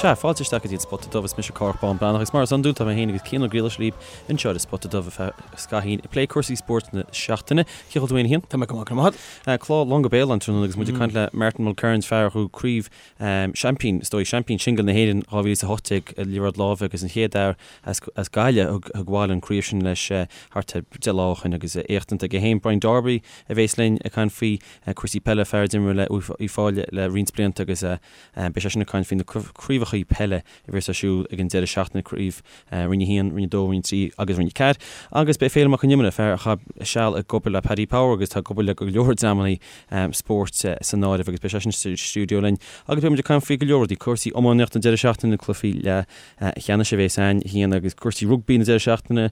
Sea, fáilte isteach go dtí an Spota Dubh, is mise Cárthach Bán Breathnach agus mar is iondúil tá mé féin agus Cian Ó Griallais libh anseo ar an Spota Dubh ar feadh scaithín ag plé cúrsaí spóirt na seachtaine. Cén chaoi a bhfuil tú féin a Chian? Tá mé go maith, go raibh maith agat. Clár lán go béal an tráthnóna agus muid ag caint le Martin Mulkerrins, fear a ghnóthaigh craobh seaimpín, is dóigh, seaimpín singil na hÉireann 2018 i liathróid láimhe agus an chéad fhear as Gaillimh a thug abhaile an craobh sin leis thart ar 10 lá ó shin agus éacht iontach aige féin. Brian Darby a bhéas linn ag caint faoi cúrsaí peile, fear a d'imir le Uíbh Fhailí le roinnt blianta agus beidh seisean ag caint faoi na craobhacha peile a bhéas ar siúl ag an deireadh seachtaine, craobh Roinn 1, Roinn 2, Roinn 3 agus Roinn 4. Agus beidh Féilim Mac Con Iomaire, fear a chaith seal ag obair le Paddy Power agus atá ag obair le go leor dreamanna spóirt san áireamh agus beidh seisean sa stiúideo linn agus beidh muid ag caint faoi go leor rudaí, cúrsaí iománaíochta an deireadh seachtaine, cluichí leathcheannais a bhéas ann, a Chian, agus cúrsaí rugbaí na deireadh seachtaine,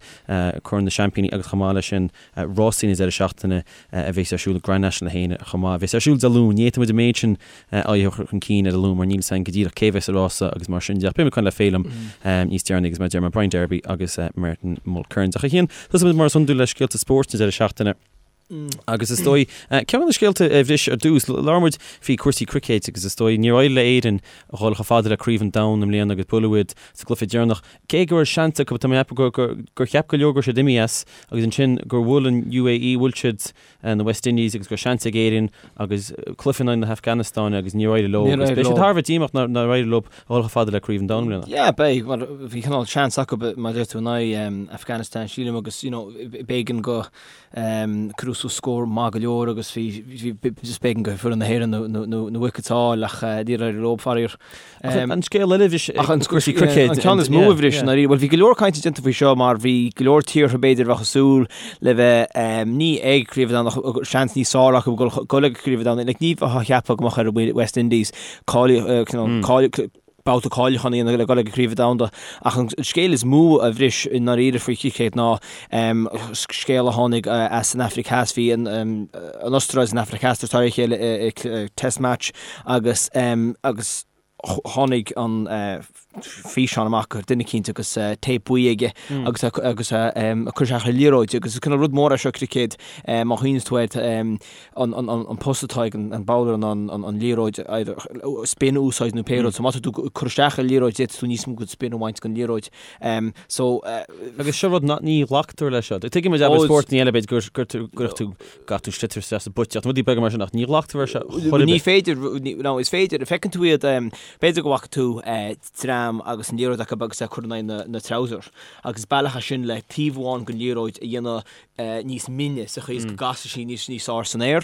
Corn na Seaimpíní agus chomh maith leis sin rásaí na deireadh seachtaine a bhéas ar siúl ag Grand National 1 chomh maith a bhéas ar siúl Dé Luain. Ní fhéadfaidh muid an méid sin a chur chun cinn ar an Luan mar níl 'fhios a'inn go díreach cé bhéas sa rása agus mar sin de. Ach beidh muid ag caint le Féilim níos deireanaí agus mar a deir mé Brian Darby agus Martin Mulkerrins. Ach a Chian, tosóidh muid mar is iondúil le scéalta spóirt na deireadh seachtaine. Agus is dóigh, ceann de na scéalta a bhris ar dtús, labhair muid faoi cúrsaí cruicéid agus is dóigh níor éirigh le Éirinn a dhul chomh fada le Craobh an Domhain i mbliana agus buaileadh iad sa gcluiche deireanach. Cé go raibh seans acu, tá mé ag ceapadh gur gur cheap go leor go raibh siad imithe as agus ansin gur bhuail an UAE, bhuail siad na West Indies agus go raibh seans ag Éirinn agus cluiche in aghaidh na hAfganastáine agus níor éirigh leo agus beidh siad thar a bheith díomách nár éirigh leo a dhul chomh fada le Craobh an Domhain i mbliana. Yeah, beidh, mar bhí cineál seans acu mar a deir tú in aghaidh Afghanistan sílim agus you know b'éigean go Cuireadh suas scór maith go leor agus bhí just b'éigean go foireann na hÉireann na wickets a fháil ach níor éirigh leo, faraor. Ach an scéal eile a bhris Ach an cúrsaí cruicéid. An ceann is mó a bhris i ndáiríre. Bhuel bhí go leor cainte déanta faoi seo mar bhí go leor tíortha b'fhéidir a bheadh ag súil le bheith ní ag Craobh an Domhain ach seans níos fearr acu dul ag Craobh an Domhain. Like ní bheifeá a cheapadh go mbeadh ar West Indies cáiliú babhta cáiliúcháin a dhéanamh le dul ag an Chraobh Domhanda. Ach an scéal is mó a bhris i ndáiríre faoi chruicéad ná scéal a tháinig as an Afraic Theas. Bhí an Astráil is an Afraic Theas tar a chéile i Test Match agus agus tháinig an físeán amach gur duine eicínt agus téip buí aige agus agus ag cur isteach ar liathróid agus is cineál rud mór é seo cruicéad má chuimhníonn tú air an post atá ag an bowler ná an liathróid either spin a úsáid nó pé rud. So má tá tú ag cur isteach ar liathróid d'fhéadfadh tú níos mó den spin a bhaint den liathróid. So. Agus seo rud nach ní ghlactar leis seo. Tuigim muid abair spórtanna eile b'fhéidir gur gur tú gcaithfidh tú sliotar isteach sa bpuiteach nó rudaí beaga mar sin ach ní ghlactar leis seo chor ar bith. Ní féidir, no is féidir, feiceann tú iad, b'fhéidir go bhfaca tú dream agus an liathróid acu agus é ag cur in aghaidh na trouser agus is bealach é sin le taobh amháin den liathróid a dhéanamh níos mine sa chaoi is go gcasfaidh sí níos níos fearr san aer.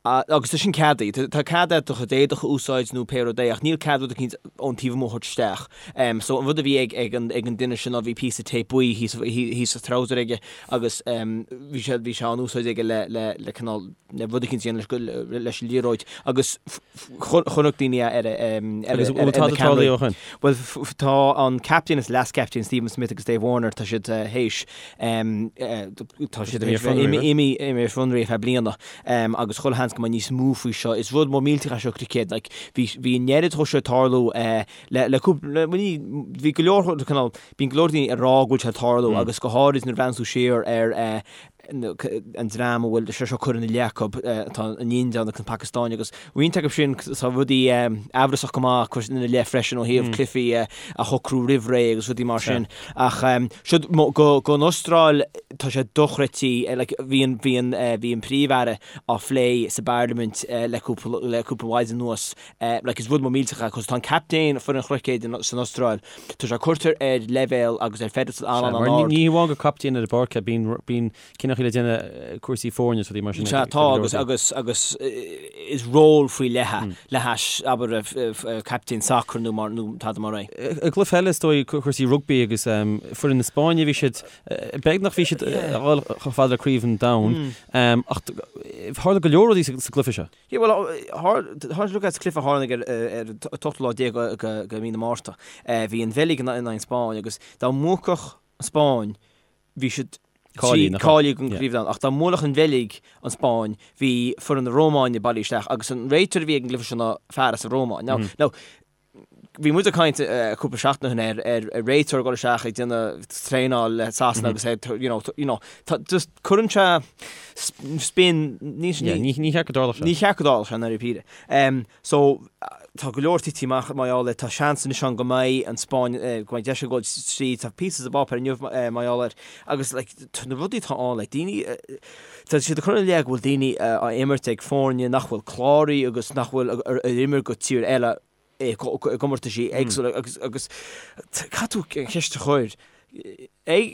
Agus tá sin ceadaithe. Tá cead do chuid éadach a úsáid nó pé rud é ach níl cead rud eicínt ón taobh amuigh a thabhairt isteach. So an rud a bhí ag ag an ag an duine sin ná bhí píosa tape buí thíos thíos sa trouser aige agus bhí sé bhí sé á úsáid aige le le le cineál le rud eicínt a dhéanamh leis leis an liathróid agus chonaic daoine é ar ar Agus bhfuil tada tarlaithe ó shin? Bhuel tá an captaen is leas-captaen Stephen Smith agus Dave Warner tá siad théis Tá siad imithe ar fionraí ar feadh bliana agus chuile sheans go mbeidh níos mó faoi seo. Is rud mór millteach é seo cruicéad. Like, bhí bhí an oiread dhó seo ag tarlú le le cúpla bhí go leor cineál bíonn go leor daoine ag rá go bhfuil sé ag tarlú agus go háirid nuair a bhreathnaíonn tú siar ar an dream a bhfuil sé seo curtha ina leith acu, tá an India agus an Phacastáin agus roinnt acu sin tá rudaí amhrasach go maith curtha ina leith freisin ó thaobh cluichí a shocrú roimh ré agus rudaí mar sin. Ach siod don Astráil tá sé dochreidte, like bhí an bhí an bhí an príomh-aire á phlé sa bparlaimint le cúpla le cúpla maidin anuas. Like is rud mór millteach é 'cause tá an captaen foireann chruicéid san Astráil, tá sé curtha ar leibhéal agus ar pedestal an-an-ard. Ní hamháin gur captaen ar an bpáirc é, bíonn bíonn cinneadh le déanamh cúrsaí foirne is rudaí mar sin. Sea, tá agus agus agus is ról faoi leith é le hais abair captaen sacair nó mar nó tada mar é. I gcluiche eile is dóigh cúrsaí rugbaí agus foireann na Spáinne bhí siad beagnach bhí siad a dhul chomh fada le Craobh an Domhain ach tharla go leor rudaí sa gcluiche seo. Yeah, bhuel, tharla look at cluiche a tharla ar an ochtú lá déag de mhí na Márta. Bhí an Bheilg in aghaidh an Spáinn agus dá mbuafadh an Spáinn bhí siad cáilithe don Chraobh Domhanda ach dá mbuailfeadh an Bheilg an Spáinn bhí foireann na Rómáine bailithe isteach agus an réiteoir a bhí ag an gcluiche seo ná fear as an Rómáin. Now, now, Bhí muid ag caint cúpla seachtain ó shin ar ar réiteoir ag dul isteach ag déanamh traenáil le Sasana agus é you know you know tá just cuireann sé spin ní ní cheart go dtarlódh sé. Ní cheart go dtarlódh sé i ndáiríre. So tá go leor tite amach mar gheall air, tá seans anois ann go mbeidh an Spáinn go mbeidh deis ag dul tríd, tá píosa sa bpáipéar inniu mar gheall air agus like na rudaí atá ann like daoine tá siad ag cur ina leith go bhfuil daoine á imirt ag foirne nach bhfuil cláraithe agus nach bhfuil ar imir go tír eile i gcomórtaisí éagsúla agus agus caithfidh tú an cheist a chur ag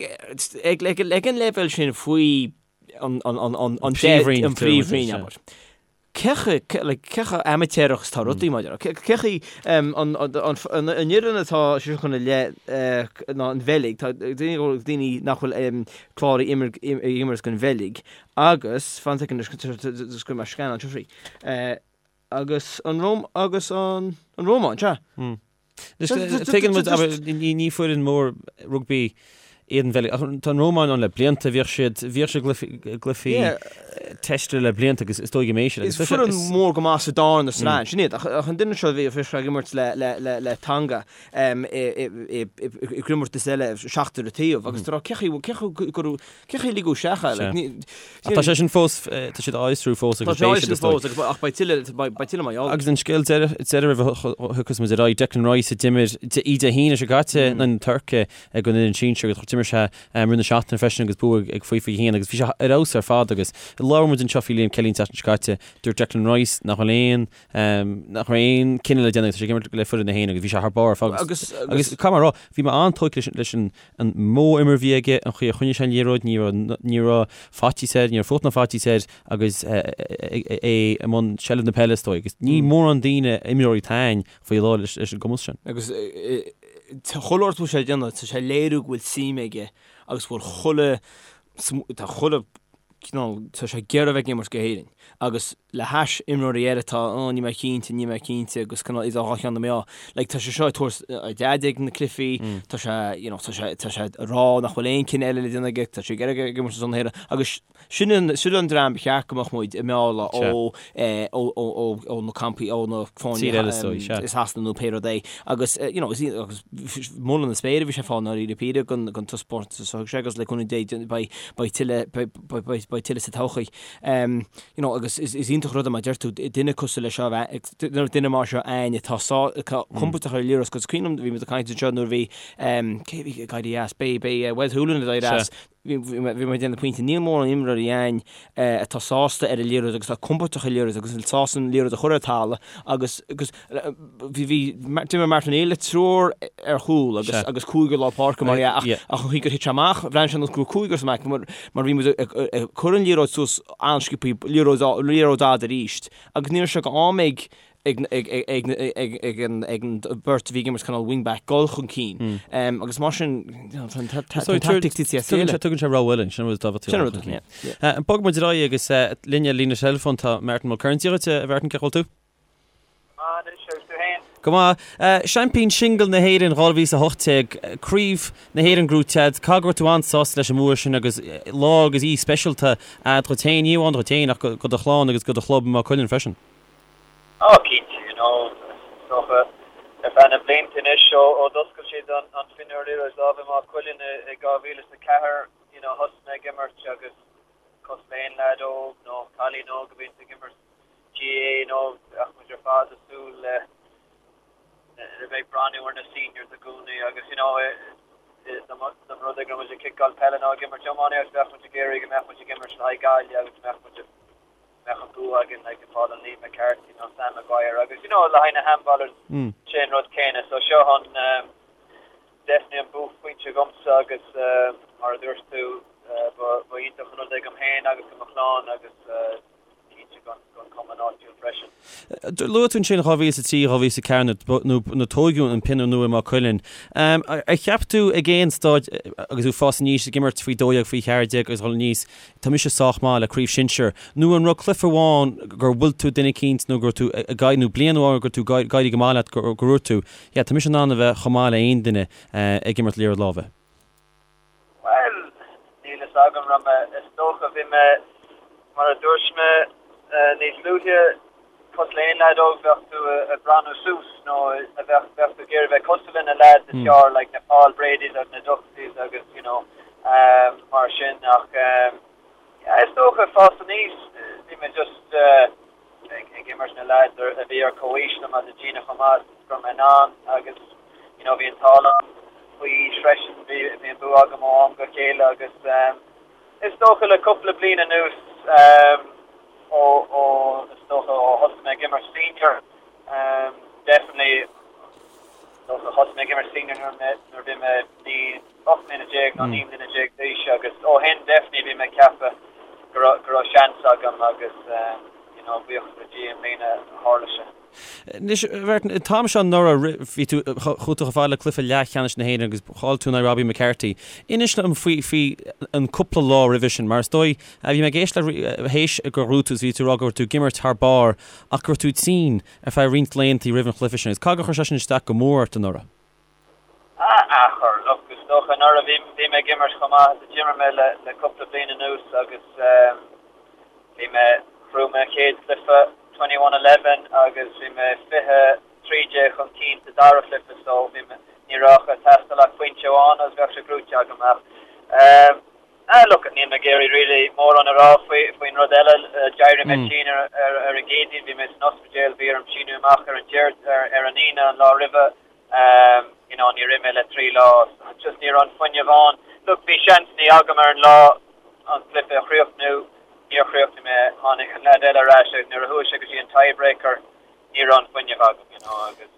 ag ag ag an leibhéal sin faoi an an an an an Príomhroinn, an príomhroinn abair. Cé chomh like cé chomh amaitéarach is atá rudaí maidir le cé chaoi an an an an fhoireann atá sé seo ina leith ná an Bheilg tá daoine daoine nach bhfuil cláraithe imir ag imirt don Bheilg agus fan soicind anois go mbeidh scan anseo faoi. Agus an Róm agus an an Rómáin, sea. Tuigeann muid, abair, ní foireann mór rugbaí iad an Bheilg, ach tá an Rómáin ann le blianta, bhíodh siad, bhíodh siad i gcluichí teiste le blianta agus is dóigh go mbeidh siad. Is foireann mór go maith sa darna sraith, sin iad, ach an duine seo a bhí ag imirt le Tonga i gcomórtas eile, seachtar an taobh, agus tá cé chaoi go raibh Cé chaoi a ligeadh isteach é? Like, ní, Ach tá sé sin fós, tá siad á fhiosrú fós agus beidh siad, is dóigh. Tá sé á fhiosrú fós, ach beidh tuilleadh, beidh tuilleadh mar gheall air. Agus an scéal deiridh, deiridh roimh a thiocfas muid ar aghaidh, Declan Rice a d'imir í Dé hAoine seo caite in aghaidh na Tuirce ag an fhoireann sinsir agus d'imir sé roimh na seachtaine freisin agus bua ag faoi 21 agus bhí sé ar fheabhas ar fad agus labhair muid anseo faoi Liam Kelly an tseachtain seo caite, dúirt Declan Rice nach bhfuil aon, nach raibh aon cinneadh le déanamh agus tá sé ag imirt le foireann na hÉireann agus bhí sé thar barr ar fad agus, agus caithfidh mé a rá, bhí mé an-tógtha leis an an modh imeartha a bhí aige, an chaoi a choinnigh sé an liathróid, ní raibh, ní raibh faitíos air, ní raibh fuacht ná faitíos air agus é i mbun seilbh na peile is dóigh. Agus ní mórán daoine, imreoirí atá ann faoi láthair leis an gcumas sin. Agus chuile rud atá sé ag déanamh, tá sé ag léiriú go bhfuil suim aige agus go bhfuil chuile, tá chuile cineál, tá sé ag iarraidh a bheith ag imirt go hÉirinn agus le hais imreoirí eile atá, oh níl mé cinnte, níl mé cinnte agus cineál idir dhá cheann na meá. Like tá sé seo ag tabhairt a dhaid ag na cluichí, tá sé, you know, tá sé, tá sé ag rá nach bhfuil aon cinneadh eile le déanamh aige, tá sé ag iarraidh ag imirt ar son na hÉireann agus sin an, sin an dream ba cheart go mbeadh muid ag mealladh ó, eh, ó, ó, ó, ó na campaí, ó na foirne Tír eile is dóigh, sea. i Sasana nó pé rud é agus, eh, you know, is, agus moladh na spéire a bhí sé ag fáil i ndáiríre píre don, don taispeántas a thug sé agus le cúnamh Dé beidh, beidh tuilleadh, beidh, beidh, beidh tuilleadh sa todhchaí. You know, agus is, is iontach rud é mar deir tú, duine cosúil leis seo, duine, duine mar seo againn atá sá, atá compordach ar an liathróid, agus cuimhin liom, bhí muid ag caint anseo nuair a bhí, cé a bhí ag éirí as, b'é, b'é Wes Hoolahan ag éirí as, bhí, bhí bhí mé ag déanamh pointe, níl mórán imreoirí againn atá sásta ar an liathróid agus atá compordach ar an liathróid agus sásta an liathróid a chur ar talamh agus, agus Bhí, bhí, d'imir Martin O'Neill le triúr ar chúl agus, agus cúigear lár páirce mar dhea ach, ach an chaoi gur thit sé amach, bhreathnaigh sé ar nós go raibh cúigear sa mbaic mar, mar bhí muid ag, ag cur an liathróid suas an-sciobthaí, liathróid, liathróid fhada arís agus ní raibh sé d'am ag, ag, ag, ag, ag, ag an, ag an bheirt a bhí ag imirt cineál wing-back dul chun cinn. Agus mar sin, you know, tá an, tá, tá an tactic tite as a chéile. Tugann sé rogha eile, sin rud tábhachtach. Sin rud, yeah. Bogfaidh muid ar aghaidh agus linn ar líne teileafóin tá Martin Mulkerrins. Dia dhuit, a Mhartin, cén chaoi a bhfuil tú? Go maith. Seaimpín Singil na hÉireann 2018, Craobh na hÉireann gnóthaithe agat, caithfidh go raibh tú an-sásta leis an mbua sin agus lá agus oíche speisialta a'd dhuit féin, ní amháin dhuit féin ach go do chlann agus go do chlub i Maigh Cuilinn freisin. Á cinnte, you know, is dócha ar feadh na blianta anois ó d'oscail siad an Fionnuar Liathróid Láimhe i Maigh Cuilinn i 2004, you know, thosaigh mé ag imirt agus cosúil le aon leaid óg nó cailín óg a bhíonns ag imirt GAA you know bheadh muid ar fad ag súil le le bheith ag breathnú ar na seniors i gcónaí agus you know dá mba rud é go raibh muid ag ciceáil peile nó ag imirt iománaíocht bheadh muid ag iarraidh go mbeadh muid ag imirt le haghaidh Gaillimh agus go mbeadh muid mbeadh an bua againn like ag fáil an Liam McCarthy nó Sam Maguire agus you know le haghaidh na handballers sé an rud céanna so seo an definitely an buaicphointe dhomsa agus mar a dúirt tú ba ba iontach an rud é dom féin agus do mo chlann agus cinnte don chumann áitiúil freisin. Luaigh tú ansin 2003, 2004 nuair a tóigeadh an pionnaire nua i Maigh Cuilinn. Ar cheap tú ag aon staid agus tú ag fás aníos ag imirt faoi 12, faoi 14 agus dul aníos, tá mise sách maith le craobh shinsir, nó an raibh cluiche amháin gur bhuail tú duine eicínt nó go raibh tú ag éirí, nó bliain amháin go raibh tú ag éirí go maith leat gur dhúirt tú, yeah, tá mise in ann a bheith chomh maith le aon duine ag imirt liathróid láimhe? Bhuel, níl fhios agam, raibh mé, is dócha, bhí mé, mar a dúirt mé níos luaithe, Cosúil le aon leaid óg bheadh tú ag breathnú suas nó a bheadh bheadh tú ag iarraidh bheith cosúil le na leaids is fearr like na Paul Bradys agus na Duxys agus you know mar sin ach yeah is dócha fás aníos bhí mé just ag ag imirt na leaids a bhí ar comhaois liom agus ag déanamh chomh maith is go raibh mé in ann agus you know bhí an t-ádh liom faoi aois freisin bhí bhí an bua agam ó am go chéile agus Is dócha le cúpla bliain anuas, ó, ó, is dócha ó thosaigh mé ag imirt senior, definitely, is dócha thosaigh mé ag imirt senior nuair mé, nuair a bhí mé 9, 18 mbliana nó 19 mbliana d'aois agus ó shin definitely bhí mé ag ceapadh go raibh, go raibh seans agam agus, you know, buíochas le Dia i mbliana tharla sé. Anois, a Mhartin, an t-am seo anuraidh, bhí tú, chuaigh tú chomh fada le cluiche leathcheannais na hÉireann agus chaill tú in aghaidh Robbie McCarthy. Inis dom faoi, faoi an cúpla lá roimhe sin, mar is dóigh, bhí mé ag éisteacht le théis gur ghnóthaigh tú, bhí tú ag rá go raibh tú ag imirt thar barr ach go raibh tú tinn ar feadh roinnt laethanta roimh an chluiche sin. Agus caithfidh gur chuir sé sin isteach go mór ort anuraidh? Ah, chuir, look, is dócha anuraidh bhí, bhí mé ag imirt chomh maith is a d'imir mé le, le cúpla bliain anuas agus bhí mé, ghnóthaigh mé an chéad chluiche 21-11 agus bhí mé 20, 13 chun cinn sa dara chluiche so bhí mé, ní raibh ag teastáil ach pointe amháin agus bheadh sé gnóthaithe agam ach ah look, níl mé ag iarraidh really mórán a rá faoi, faoin rud eile, d'éirigh mé tinn ar, ar, ar an gCéadaoin, bhí mé san ospidéal, bhí orm síniú amach ar an Déard, ar, ar an Aoine an lá roimhe, you know níor ith mé le 3 lá just ní raibh an fuinneamh ann. Look bhí seansannaí agam ar an lá an cluiche a chríochnú, níor chríochnaigh mé, tháinig an leaid eile ar ais agus nuair a chuaigh sé go dtí an tiebreaker ní raibh an fuinneamh agam you know agus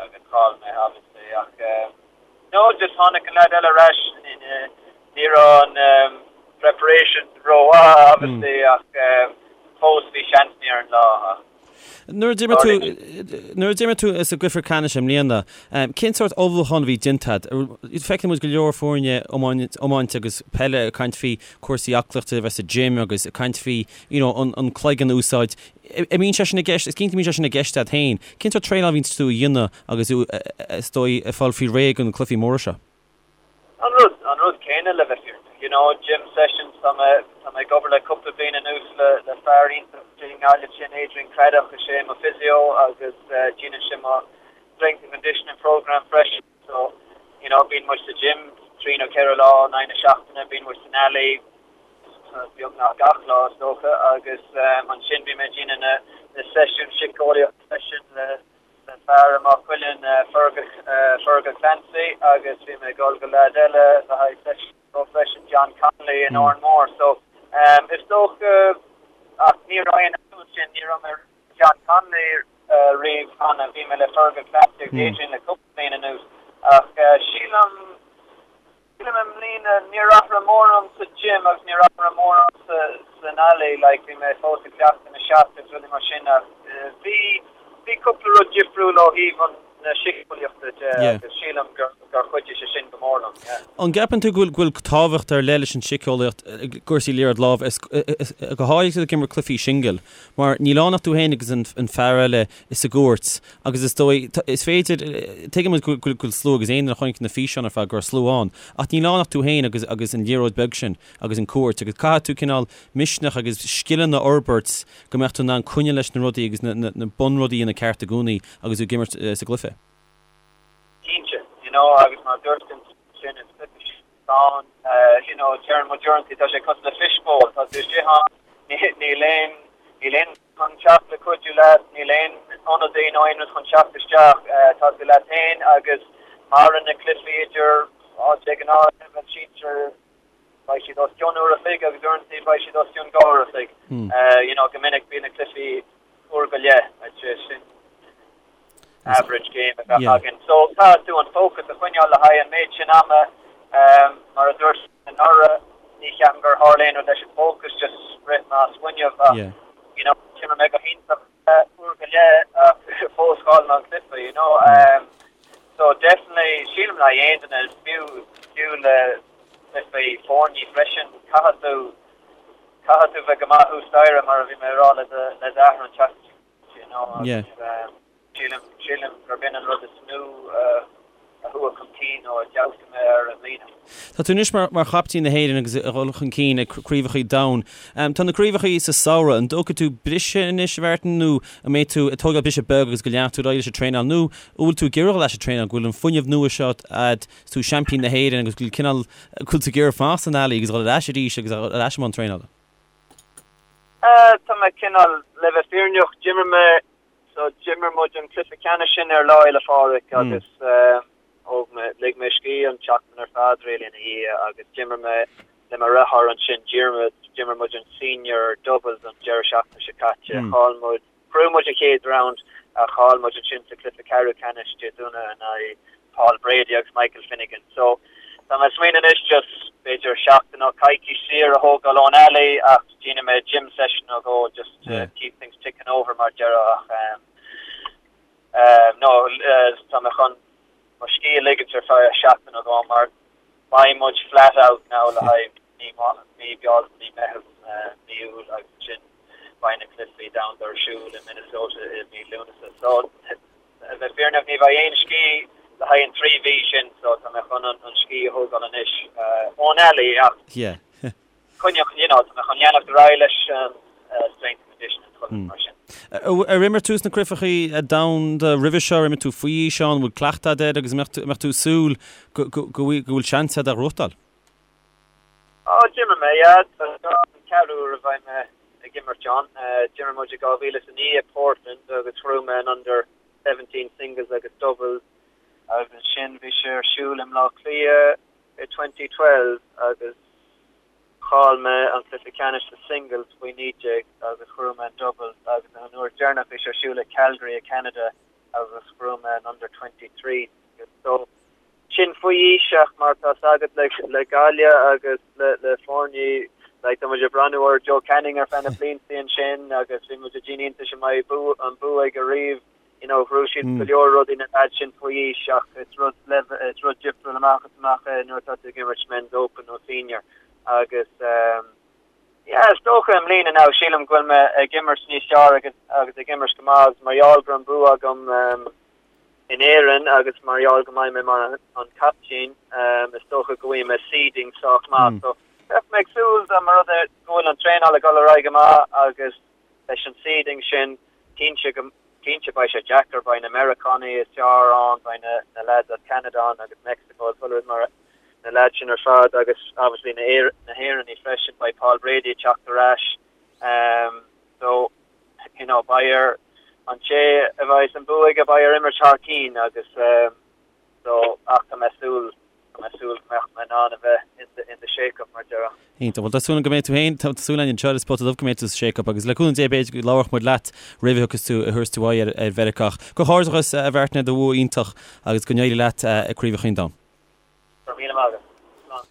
agus chaill mé obviously ach no just tháinig an leaid eile ar ais ní raibh an preparation rómhaith obviously ach fós bhí seansannaí ar an lá ach Nuair a d'imir tú, nuair a d'imir tú sa gcluiche ceannais i mbliana, cén sórt ullmhúchán a bhí déanta agat? Feiceann muid go leor foirne iomáinte agus peile ag caint faoi cúrsaí aclaíochta, a bheith sa gym agus ag caint faoi you know an an cloigeann a úsáid. An mbíonn sé sin i gceist, is cinnte go mbíonn sé sin i gceist agat féin. Cén sórt traenáil a bhíonns tú a dhéanamh agus tú is dóigh ag fáil faoi réir do na cluichí móra seo? An rud, an rud céanna le bheith fírinneach. You know, gym sessions, tá mé, tá mé ag obair le cúpla bliain anuas le, le fear iontach i nGaillimh sin Adrian Craddock, is é mo physio agus déanann sé mo strength and conditioning program freisin. So, you know, bíonn muid sa gym 3 nó 4 lá in aghaidh na seachtaine, bíonn muid san alley beagnach gach lá is dócha agus ansin bíonn mé ag déanamh na, na seisiúin síceolaíochta freisin le, le fear i Maigh Cuilinn, Fergal Clancy agus bhí mé ag dul go leaid eile le haghaidh seisiún leo freisin, John Connolly in Órán Mór. So is dócha, ach ní raibh aon athrú ansin, ní raibh mé le John Connolly riamh cheana, bhí mé le Fergal Clancy agus Adrian le cúpla bliain anuas ach sílim, Sílim i mbliana, níor athraigh mórán sa gym agus níor athraigh mórán san alley, like bhí mé fós ag cleachtadh na shots agus rudaí mar sin ach bhí, bhí cúpla rud difriúil ó thaobh an, na síceolaíochta de agus sílim gur, gur chuidigh sé sin go mór liom, yeah. An gceapann tú go bhfuil, go bhfuil tábhacht ar leith leis an síceolaíocht i gcúrsaí liathróid láimhe, go háirithe ag imirt cluichí singil, mar níl ann ach tú féin agus an, an fear eile sa gcúirt Agus is dóigh, is féidir, tuigeann muid go bhfuil slua agus aon duine a chonaic na físeáin ar fad go raibh slua ann, ach níl ann ach tú féin agus agus an liathróid beag sin agus an cúirt agus caithfidh tú cineál misneach agus scileanna a fhorbairt go mbeadh tú in ann coinneáil leis na rudaí agus na na bunrudaí a dhéanamh ceart i gcónaí agus tú ag imirt sa gcluiche. Cinnte, you know, agus mar a dúirt tú ansin, is cluiche ann, you know, deireann muid uaireanta, tá sé cosúil le fishbowl, tá tú istigh ann, níl aon, níl aon chun teacht le cuidiú leat, níl aon ionadaí nó aon rud chun teacht isteach, tá tú leat féin agus maireann na cluichí idir, á, de ghnáth, leibhéal sinsir, beidh siad os cionn uair a chloig agus uaireanta beidh siad os cionn dhá uair a chloig. You know, go minic bíonn na cluichí uair go leith, I'd say sin average game a bheadh againn. So caithfidh tú an focus a choinneáil le haghaidh an méid sin ama, mar a dúirt anuraidh, ní cheapaim gur tharla aon rud leis an focus, just rith mé as fuinneamh ach you know d'imir mé go hiontach uair go leith ach fós chaill mé an cluiche, you know. So definitely sílim le haghaidh aon duine, fiú fiú le cluichí foirne freisin, caithfidh tú caithfidh tú bheith go maith thuas staighre mar a bhí mé ag rá le do le d'athair an tseachtain seo, you know, agus sílim sílim gurb in an rud is mó a. a chuaigh chun cinn nó a d'fheabhsaigh mé air i mbliana. Tá tú anois mar chaiptín na hÉireann agus ag dul chun cinn ag craobhacha domhain. Tá na craobhacha sa samhradh, an dtógfaidh tú briseadh anois, a Mhartin, nó an mbeidh tú ag tógáil briseadh beag agus go leanfaidh tú ar aghaidh leis an traenáil nó an bhfuil tú ag iarraidh dul leis an traenáil, go bhfuil an fuinneamh nua seo a'd, is tú seaimpín na hÉireann agus go bhfuil cineál, go bhfuil tú ag iarraidh fanacht san ealaí agus dul ar ais arís agus ar ais i mbun traenála? Tá mé cineál, le bheith fírinneach, d'imir mé So d'imir muid an cluiche ceannais sin ar Lá Fhéile Phádraig agus thóg mé, lig mé scíth an tseachtain ar fad really ina dhiaidh agus d'imir mé le mo dheartháir ansin, d'imir muid an senior doubles an deireadh seachtaine seo caite. Chaill muid, ghnóthaigh muid an chéad round ach chaill muid ansin sa cluiche ceathrú ceannais Dé Domhnaigh in aghaidh Paul Brady agus Michael Finnegan. So tá mé ag smaoineamh anois just b'fhéidir seachtain nó coicís saor a thógáil ón ealaí ach déanfaidh mé gym session nó dhó just to keep things ticking over mar a déarfá ach um, um, no tá mé chun mo scíth a ligint ar feadh seachtain nó dhó mar beidh muid flat out now le haghaidh mí mí Bealtaine, mí Meitheamh, mí Iúil agus ansin beidh na cluichí domhanda ar siúl i Minnesota i mí Lúnasa. So A bheith fírinneach, ní bheidh aon scíth le haghaidh an 3 mhí sin so tá mé chun an scíth a thógáil anois ón ealaí ach coinneoidh, you know, tá mé chun leanacht ar aghaidh leis an strength and conditioning chuile rud mar sin. Ar imir tú sna craobhacha domhanda roimhe seo, ar imir tú faoi aois ann, an bhfuil cleachtadh agat air agus an mbeadh tú ag súil go bhfuil seans agat é a ghnóthachtáil? Á, d'imir mé, yeah. Tá seo an ceathrú uair a bheidh mé ag imirt ann. D'imir muid i 2009 i Portland agus ghnóthaigh mé an Under 17 Singles agus Doubles agus ansin bhí sé ar siúl i mBleá Cliath i 2012 agus chaill mé an cluiche ceannais sa Singles faoi 19 agus ghnóthaigh mé an Doubles agus an uair deireanach bhí sé ar siúl i Calgary i Canada agus ghnóthaigh mé an Under 23 Singles. So, sin faoi aois ach mar tá 's agat le Gaillimh agus le foirne like tá muid ag breathnú ar Joe Canning ar feadh na blianta ansin agus bhí muid ag déanamh iontais an mbeidh bua an bua aige riamh you know ghnóthaigh siad go leor rudaí na lads sin faoi aois ach is rud is rud difriúil amach is amach é nuair atá tú ag imirt men's open nó senior agus um, yeah is dócha i mbliana now sílim go bhfuil mé ag imirt níos fearr agus agus ag imirt go maith agus mar gheall go raibh an bua agam um, in Éirinn agus mar gheall go mbeidh mé mar an captaen, is dócha go bhfaighidh mé seeding sách maith. So bheadh mé ag súil dá mba rud é go bhfuil an traenáil ag dul ar aghaidh go maith agus leis an seeding sin, cinnte go, cinnte beidh sé deacair, beidh na Meiriceánaigh is fearr ann, beidh na, na lads as Ceanada ann agus Mexico agus chuile rud mar na lads sin ar fad agus obviously na, na hÉireannaigh freisin, beidh Paul Brady ag teacht ar ais. So. you know, beidh ar an té a bheidh an bua aige, beidh air imirt thar cinn agus so ach tá mé ag súil, tá mé ag súil go mbeadh mé in ann a bheith in the, in the shake-up mar a déarfá. Iontach. Bhuel, tá súil agam go mbeidh tú féin, tá súil againn anseo ar An Spota Dubh go mbeidh tú sa shake-up agus le cúnamh Dé b'fhéidir go labharfadh muid leat roimh a thiocfas tú, a thabharfas tú aghaidh ar, ar Mheiriceá. Ach comhghairdeachas a Mhartin ar do bhua iontach agus go n-éirí leat i gCraobh an Domhain. Go raibh míle maith agat. Slán.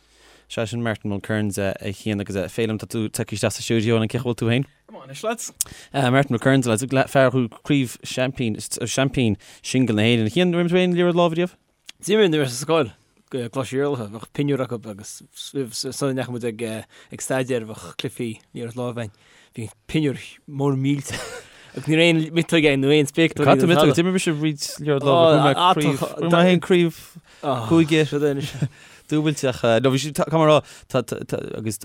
Sea, sin Martin Mulkerrins a Chian agus a Féilim, tá tú tagtha isteach sa stiúideo an cén chaoi a bhfuil tú féin? Go maith anois, lads. Martin Mulkerrins, lads, fear a ghnóthaigh craobh seaimpín, seaimpín singil na hÉireann. A Chian, ar imir tú aon liathróid láimhe riamh? D'imir nuair a bhí mé sa scoil, i gColáiste Iarlatha, bheadh pinniúr acu agus sula ndeachaigh muid ag ag staidéar bheadh cluichí liathróid láimhe againn. Bhí pinniúr mór millteach agus ní raibh aon miotóg ann nó aon spéacláirí Cad tá miotóg? D'imir mise roinnt liathróid láimhe, bhuaigh mé craobh, bhuaigh mé féin craobh cúige dúbailte ach no bhí sé tá mar rá tá agus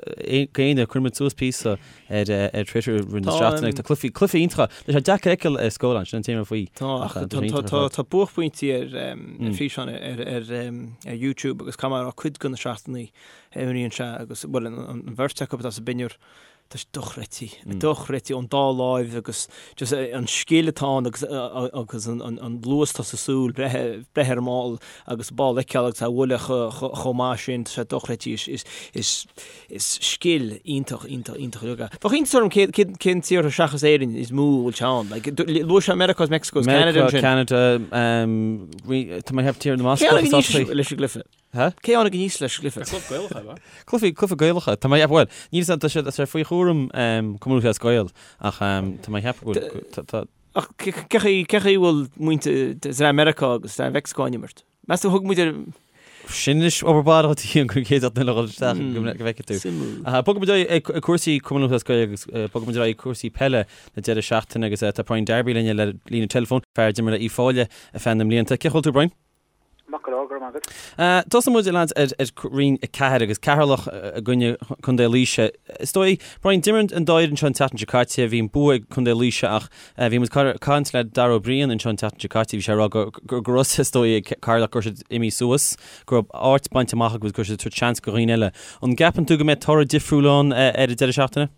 géine chuir muid suas píosa ar ar Twitter roimh na seachtaine tá cluichí cluichí iontacha tá sé deacair a fheiceáil ar scáileán sin an téama faoi Tá tá tá buaicphointí ar ar físeán ar ar ar YouTube agus caithfidh mé a rá cuid de na seachtanna a imríonn sé agus bhuel an bheirt acu atá sa bpinniúr Tá sé dochreidte, dochreidte ón dá láimh agus just an scil atá ann agus agus an luas atá sa súil, breith breith ar an mball agus an ball a fheiceáil agus é a bhualadh chomh maith sin, tá sé dochreidte. Is is is is scil iontach, iontach, iontach uilig é. Bheadh iontas orm cé cé cén tíortha seachas Éirinn is mó a bhfuil sé ann. Like, luaigh sé Meiriceá agus Mexico agus Canada ansin. Meiriceá, Canada, tá mé ag ceapadh Tír na mBascach Cé tháinig aníos leis an gcluiche? Ha? Cé tháinig aníos leis an gcluiche? Cluiche Gaelach é, ba? Cluiche, cluiche Gaelach. Tá mé ag ceapadh, bhuel, níl 'fhios a'm, tá sé, tá sé faoi chúram Cumann Lúthchleas Gael, ach tá mé ag ceapadh go bhfuil, tá, tá. Ach cé chaoi, cé chaoi bhfuil muintir dream Meiriceá agus dream Mheicsiceo ag imirt? Meas tú thug muid ar. Sin anois obair baile dhuit a Chian go gcéad duine a dhul isteach go bhfeicfidh tú. Suimiúil. Bogfaidh muid ar aghaidh ag cúrsaí Cumann Lúthchleas Gael agus bogfaidh muid ar aghaidh ag cúrsaí peile na deireadh seachtaine agus tá Brian Darby linn ar líne teileafóin, fear a d'imir le Uíbh Fhailí ar feadh na mblianta. Cén chaoi a bhfuil tú Brian? Maith go leor, go. go raibh maith agat. Tosóidh muid, a lads, ar Roinn 4 agus Ceatharlach i gcoinne Contae Laoise. Is dóigh, Brian, d'imir an dá fhoireann seo an tseachtain seo caite, bhí an bua ag Contae Laoise ach bhí muid ag caint le Dara Ó Briain anseo an tseachtain seo caite, bhí sé ag rá go raibh is dóigh ag Ceatharlach go raibh siad imithe suas, go raibh áit bainte amach acu agus go raibh siad ag tabhairt seans do dhaoine eile. An gceapann tú go mbeidh toradh difriúil ann ar an deireadh seachtaine?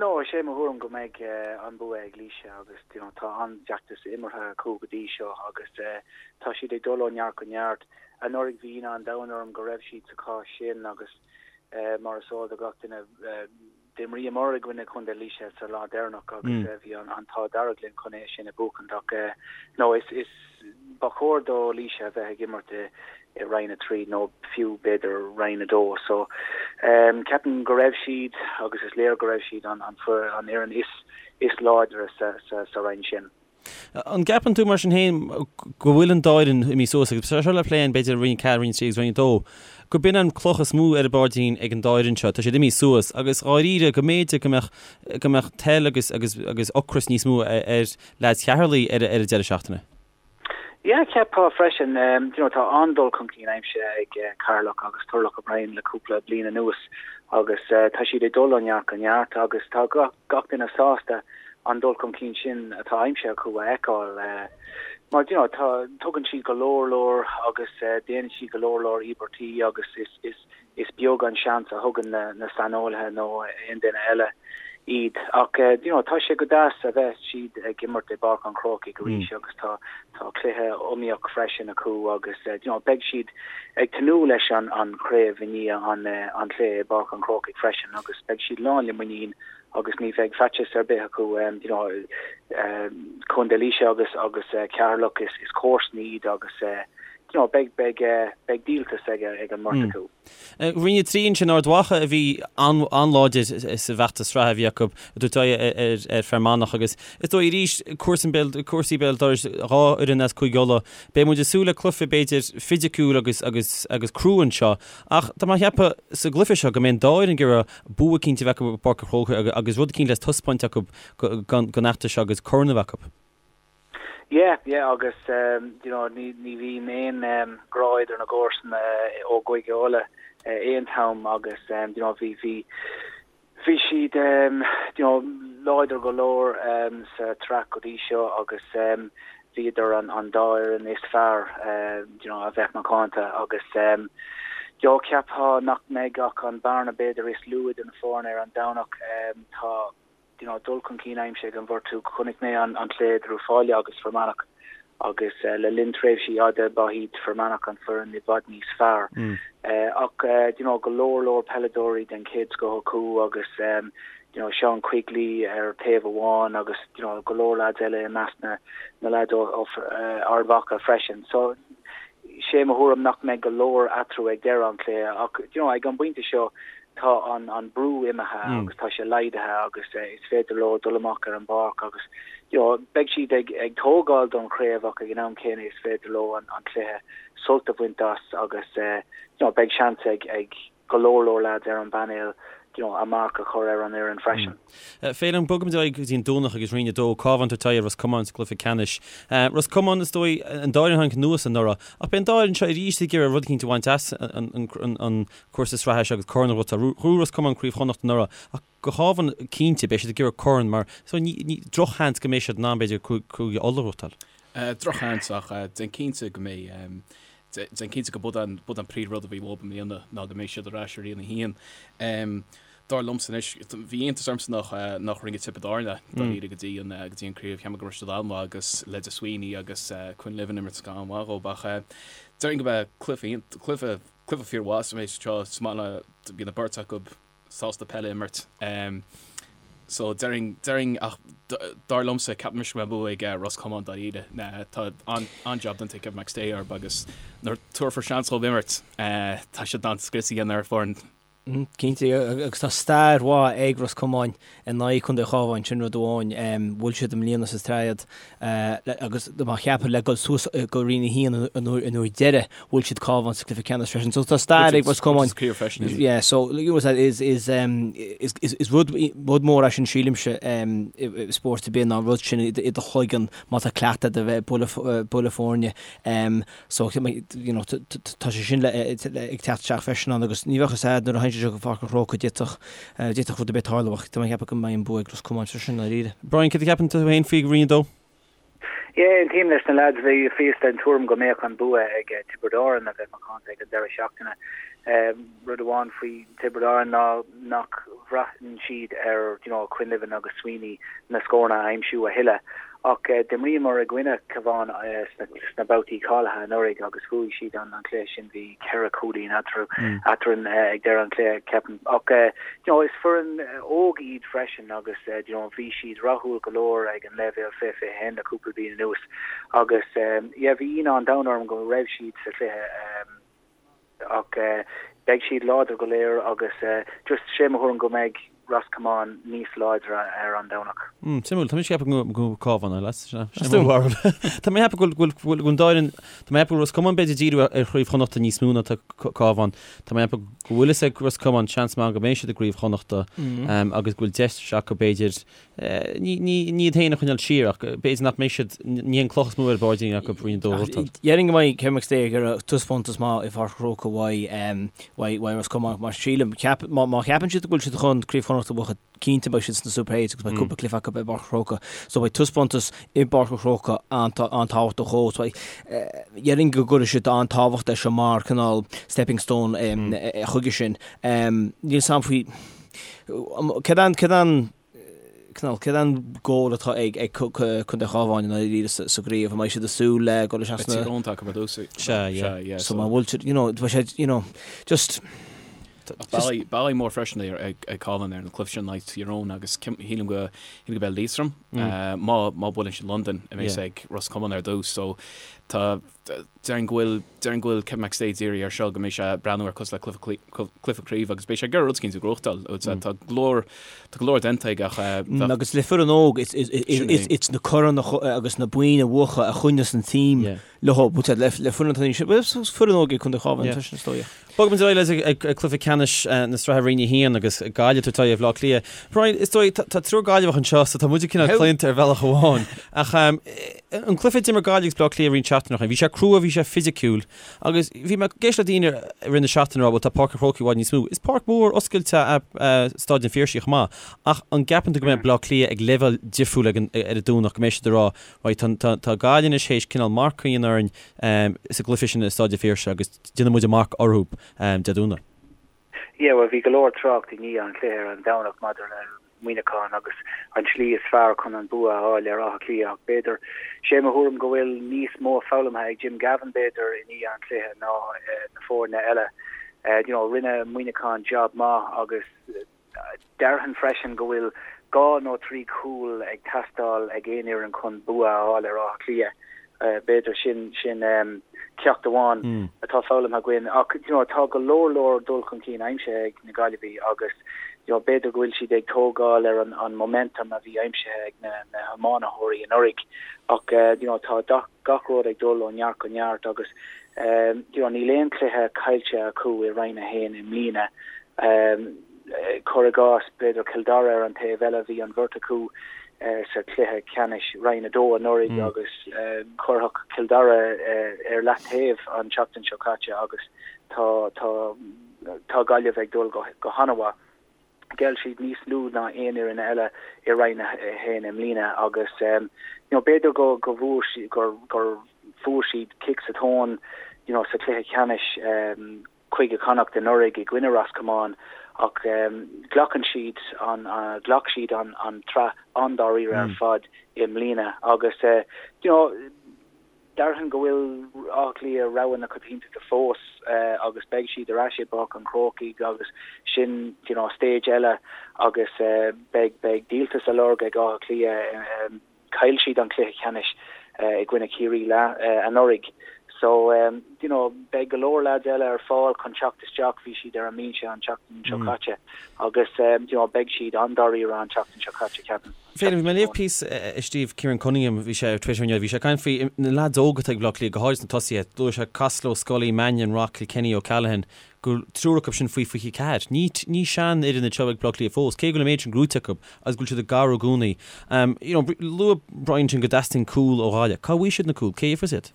No, is é mo thuairim go mbeidh an bua ag Laoise agus you know tá an-fheachtas imeartha acu go dtí seo agus tá siad ag dul ó neart go neart. Anuraidh bhí ionadh an domhain orm go raibh siad sa chás sin agus mar is eol do gach duine d'imríomar i gcoinne Chontae Laoise sa lá deireanach agus bhí an t-ádh dearg linn chun é sin a bhuachaint ach no is is Ba chóir do Laoise a bheith ag imirt i Roinn 3 nó fiú b'fhéidir Roinn 2. So ceapaim go raibh siad agus is léir go raibh siad an fhoireann is láidre sa roinn sin. An gceapann tú mar sin féin go bhfuil an dá fhoireann imithe suas agus seo le plé b'fhéidir Roinn 4, Roinn 3 agus Roinn 2, go b'in an cloch is mó ar a bpaidrín ag an dá fhoireann seo, tá siad imithe suas agus dháiríre go mb'fhéidir go mbeadh go mbeadh toil agus agus agus ocras níos mó ar leaids Cheatharlaigh ar an deireadh seachtaine. Yeah, cheapfá freisin. You know, tá an-dul chun cinn aimsithe ag Ceatharlach agus Turlough O'Brien le cúpla bliain anuas agus tá siad ag dul ó neart go neart agus tá gach duine sásta an dul chun cinn sin atá aimsithe acu a fheiceáil. Mar, you know, tá, tugann siad go leor leor agus déanann siad go leor leor íobairtí agus is, is, Is beag an seans a thugann na saineolaithe nó aon duine eile iad ach you know tá sé go deas a bheith siad ag imirt i bPáirc an Chrócaigh arís agus tá tá cluiche iomaíoch freisin acu agus you know beidh siad ag tnúth leis an an chraobh i ndiaidh an an chluiche i bPáirc an Chrócaigh freisin agus beidh siad lán le muinín agus ní bheidh faitíos ar bith acu you know Contae Laoise agus agus Ceatharlach is is comharsana iad agus you know, beidh, beidh, beidh díoltas ag, ag an mbeirt acu. Roinn 3 ansin, Ard Mhacha a bhí an-láidir sa bhfeachtas sraithe a bhí acu, ag tabhairt aghaidh ar, ar Fear Manach agus is dóigh arís cúrsaí béal, cúrsaí béal dorais, dhá fhoireann as Cúige Uladh. Beidh muid ag súil le cluiche b'fhéidir fisiciúil agus, agus, agus crua anseo ach tá mé ag ceapadh sa gcluiche seo go mbeidh an dá fhoireann ag iarraidh bua eicínt a bheith acu i bPáirc an Chrócaigh agus rud eicínt le taispeáint acu don fheachtas seo agus corn a bheith acu. Yeah, yeah agus you know ní ní bhíonn aon grá idir na gcomharsana ó gCúige Uladh aon t-am agus you know bhí bhí bhí siad you know láidir go leor sa tsraith go dtí seo agus bhíodar an an dá fhoireann is fearr you know a bheith macánta agus you know cheapfá nach mbeidh ach an bearna b'fhéidir is lú idir na foirne ar an Domhnach tá you know, dul chun cinn aimsithe ag an bheirt acu. Chonaic mé an cluiche idir Uíbh Fhailí agus Fear Manach agus le linn tréimhsí fhada ba iad Fear Manach an foireann i bhfad níos fearr. Ach you know, go leor leor peileadóirí den chéad scoth acu agus you know, Sean Quigley ar taobh amháin agus you know, go leor lads eile i measc na, na lads ó, ó Ard Mhacha freisin. So sé mo thuairim nach mbeidh go leor eatarthu ag deireadh an chluiche ach you know, ag an bpointe seo tá an an brú imithe agus tá sé laghdaithe agus is féidir leo dul amach ar an bpáirc agus you know beidh siad ag ag tógáil don chraobh ach ag an am céanna is féidir leo an an cluiche sult a bhaint as agus you know beidh seans ag ag go leor leor lads ar an bpainéal you know a marc a chur ar an fhoireann freisin. Féilim, bogfaimid ar aghaidh go dtí an Domhnach agus Roinn 2, Cabhán ag tabhairt aghaidh ar Ros Comáin sa gcluiche ceannais. Ros Comáin, is dóigh, an dá fhoireann a tháinig anuas anuraidh, ach beidh an dá fhoireann seo arís ag iarraidh rud eicínt a bhaint as an cúrsa sraithe seo agus corn a ghnóthachtáil. Ghnóthaigh Ros Comáin Craobh Chonnacht anuraidh ach do Chabhán cinnte beidh siad ag iarraidh corn mar so ní drochsheans go mbeidh siad in ann b'fhéidir Cúige Uladh a ghnóthachtáil. Drochsheans ach déan cinnte go mbeidh déan cinnte go b'in an b'in an príomh rud a bhí uathu i mbliana ná go mbeidh siad ar ais i Roinn 1. Dar liomsa anois, bhí iontas ormsa nach nach rinne Tiobraid Árann é dáiríre go dtí an go dtí an craobh. Cheap mé go raibh siad an-mhaith agus leide Sweeney agus Quinlivan imirt go han-mhaith dhóibh ach déarfainn go mbeidh cluiche cluiche Cluiche fíormhaith sa méid seo, is maith le, bíonn an beirt acu sásta peil a imirt. So déarfainn, déarfainn ach dar liomsa ceapaim go mbeidh bua ag Ros Comáin dáiríre. Tá an-jab déanta ag Kevin McStay orthu agus nuair tabharfar seans dhóibh imirt, tá siad in ann scrios a dhéanamh ar foireann. Cinnte, agus tá stair mhaith ag Ros Comáin in aghaidh Contae an Chabháin, sin rud amháin. Bhuail siad i mbliana sa tréad agus má cheapfá le dul suas go Roinn 1 an uair deiridh, bhuail siad Cabhán sa cluiche ceannais freisin. So tá stair ag Ros Comáin. Yeah, so is is is is rud rud mór é sin sílimse i spórt ar bith ná an rud sin i do chloigeann má tá cleachtadh agat a bheith ag bualadh foirne. So, you know, tá sé sin ag teacht isteach freisin ann agus ní bheadh fhios a'd nuair a théann sé seo go Pháirc an Chrócaigh d'fhéadfadh, d'fhéadfadh rud ar bith tarlú ach tá mé ag ceapadh go mbeidh an bua ag Ros Comáin freisin, i ndáiríre. Brian, céard a cheapann tú féin faoi Roinn 2? Yeah, aontaím leis na lads, bhíos den tuairim go mbeadh an bua ag Tiobraid Árann a bheith macánta ag an deireadh seachtaine. Rud amháin faoi Tiobraid Árann ná nach bhraitheann siad ar you know Quinlivan agus Sweeney na scóranna a aimsiú a thuilleadh. Ach d'imríomar i gcoinne Cabhán sna babhtaí cáilithe anuraidh agus bhuaigh siad an cluiche sin, bhí ceithre chúilín eatarthu eadrainn ag deireadh an chluiche, ceapaim. Ach you know is foireann óg iad freisin agus you know bhí siad rathúil go leor ag an leibhéal 20 21 le cúpla bliain anuas agus yeah bhí ionadh an domhain orm go raibh siad sa chluiche. Ach beidh siad láidir go léir agus just sé mo thuairim go mbeidh Ros Comáin níos láidre ar an Domhnach. Mm, suimiúil. Tá mise ag ceapadh go Cabhán, a lads. Sin mo bharúil. Tá mé ag ceapadh go bhfuil an dá fhoireann, tá mé ag ceapadh go bhfuil Ros Comáin b'fhéidir ag díriú ar Chraobh Chonnachta níos mó ná tá Cabhán. Tá mé ag ceapadh go bhfuil fhios ag Ros Comáin seans maith go mbeidh siad i gCraobh Chonnachta agus go bhfuil deis acu b'fhéidir Ní iad féin a choinneáil siar ach b'fhéidir nach mbeidh siad, ní an cloch is mó ar a bpáirdín acu Roinn 2 a bhuachtáil. Déarfainn go mbeidh Kevin McStay ag iarraidh taispeántas maith i bPáirc an Chrócaigh uaidh Ros Comáin mar sílim, má cheapann siad go bhfuil siad chun Craobh Chonnacht a bhuachan, cinnte beidh siad sna Super Eights agus beidh cúpla cluiche acu i bPáirc an Chrócaigh. So beidh taispeántas i bPáirc an Chrócaigh an-tábhachtach dhóibh. So déarfainn go gcuirfidh siad an-tábhacht leis seo mar cineál stepping stone chuige sin. Níl fhios a'm faoi Céard an, céard an, cineál, céard an goal atá ag, ag Contae Chabháin i ndáiríre sa, sa gcraobh? An mbeidh siad ag súil le dul isteach sna. Tír Eoghain atá acu ar dtús. Sea, yeah. Sea, yeah. So má bhfuil siad, you know, beidh sé, you know, just. Ach bealach mór freisin ag, ag Cabhán ar an cluiche sin in aghaidh Tír Eoghain agus shílim go, shílim go beidh Liatroim, má, má buaileann siad Londain a bheas ag Ros Comáin ar dtús. So tá, Déarfainn go bhfuil, déarfainn go bhfuil Kevin McStay dírithe air seo, go mbeidh sé ag breathnú air cosúil le cluiche, cluiche craoibhe agus beidh sé ag iarraidh rud eicínt a ghnóthachtáil. Tá go leor, tá go leor déanta aige ach bheadh. Agus le foireann óg, it's, it's, it's, it's na coirn agus na boinn a bhuachan a choinneos an team leo, but le, le foireann atá níos, well, foireann óg ag Contae Chabháin freisin is dóigh. Bogfaimid ar aghaidh ag cluiche ceannais na sraithe Roinn 1 agus Gaillimh ag tabhairt aghaidh ar Bhaile Átha Cliath. Brian, is dóigh, tá triúr Gaillimheach anseo so tá muid cineál claonta ar bhealach amháin. Ach an cluiche a d'imir Gaillimh agus Baile Átha Cliath roinnt seachtainí ó shin, bhí sé crua, bhí sé fisiciúil agus bhí mé ag éisteacht le daoine i rith na seachtaine ag rá bhuel tá Páirc an Chrócaigh i bhfad níos mó. Is páirc mhór oscailte é Staid an Phiarsaigh chomh maith ach an gceapann tú go mbeidh Baile Átha Cliath ag leibhéal difriúil ar an Domhnach, go mbeidh siad ag rá right tá Gaillimh anois théis cineál marc a dhéanamh orainn sa gcluiche sin i Staid an Phiarsaigh agus déanfaidh muid a marc orthu Dé Domhnaigh. Yeah, bhuel bhí go leor trácht i ndiaidh an chluiche ar an Domhnach maidir le Muineachán agus an tslí is fearr chun an bua a fháil ar Áth Cliath ach b'fhéidir, sé mo thuairim go bhfuil níos mó foghlamtha ag Jim Gavin b'fhéidir i ndiaidh an chluiche ná na foirne eile. You know, rinne Muineachán job maith agus Déarfainn freisin go bhfuil dhá nó trí chúl ag teastáil ag aon fhoireann chun bua a fháil ar Áth Cliath. B'fhéidir sin sin ceacht amháin atá foghlamtha againn. Ach you know tá go leor leor dul chun cinn aimsithe ag na Gaillimhigh agus you know b'fhéidir go bhfuil siad ag tógáil ar an an momentum a bhí aimsithe ag na na hiománaithe anuraidh. Ach you know tá gach rud ag dul ó neart go neart agus you know níl aon chluiche caillte acu i Roinn 1 i mbliana. Cuir i gcás, b'fhéidir Cill Dara ar an taobh eile, bhí an bheirt acu sa chluiche ceannais Roinn 2 anuraidh agus cuireadh Cill Dara ar leataobh an tseachtain seo caite agus tá tá tá Gaillimh ag dul go go han-mhaith. Ghéill siad níos lú ná aon fhoireann eile i Roinn 1 i mbliana agus you know b'fhéidir go go bhfuair siad gur gur fuair siad cic sa tóin you know sa chluiche ceannais Cúige Chonnacht anuraidh i gcoinne Ros Comáin ach glacann siad an ghlac siad an an tsraith an-dáiríre ar fad i mbliana agus you know déarfainn go bhfuil Áth Cliath rogha na coitiantachta fós agus beidh siad ar ais i bPáirc an Chrócaigh agus sin you know stage eile agus beidh beidh díoltas á lorg ag Áth Cliath Chaill siad an cluiche ceannais i gcoinne Chiarraí anuraidh. So you know beidh go leor lads eile ar fáil chun teacht isteach, bhí siad ar an mbinse an tseachtain seo caite agus you know beidh siad an-dáiríre an tseachtain seo caite ceapaim. Féilim, bhí mé ag léamh píosa a scríobh Kieran Cunningham, bhí sé ar Twitter inniu, bhí sé ag caint faoi na lads óga atá ag Bleá Cliath, go háirid sna tosaithe, luaigh sé Costello, Scully, Mannion, Rock, Kilkenny, O'Callaghan, go bhfuil triúr acu sin faoi 24. Ní ní seanfhoireann iad seo ag Bleá Cliath fós, cé go bhfuil an méid sin gnóite acu agus go bhfuil siad ag cabhrú i gcónaí. You know, luaigh Brian sin go dteastaíonn cúl ó Ghaillimh. Cá bhfaighidh siad na cúil? Cé a gheofas iad?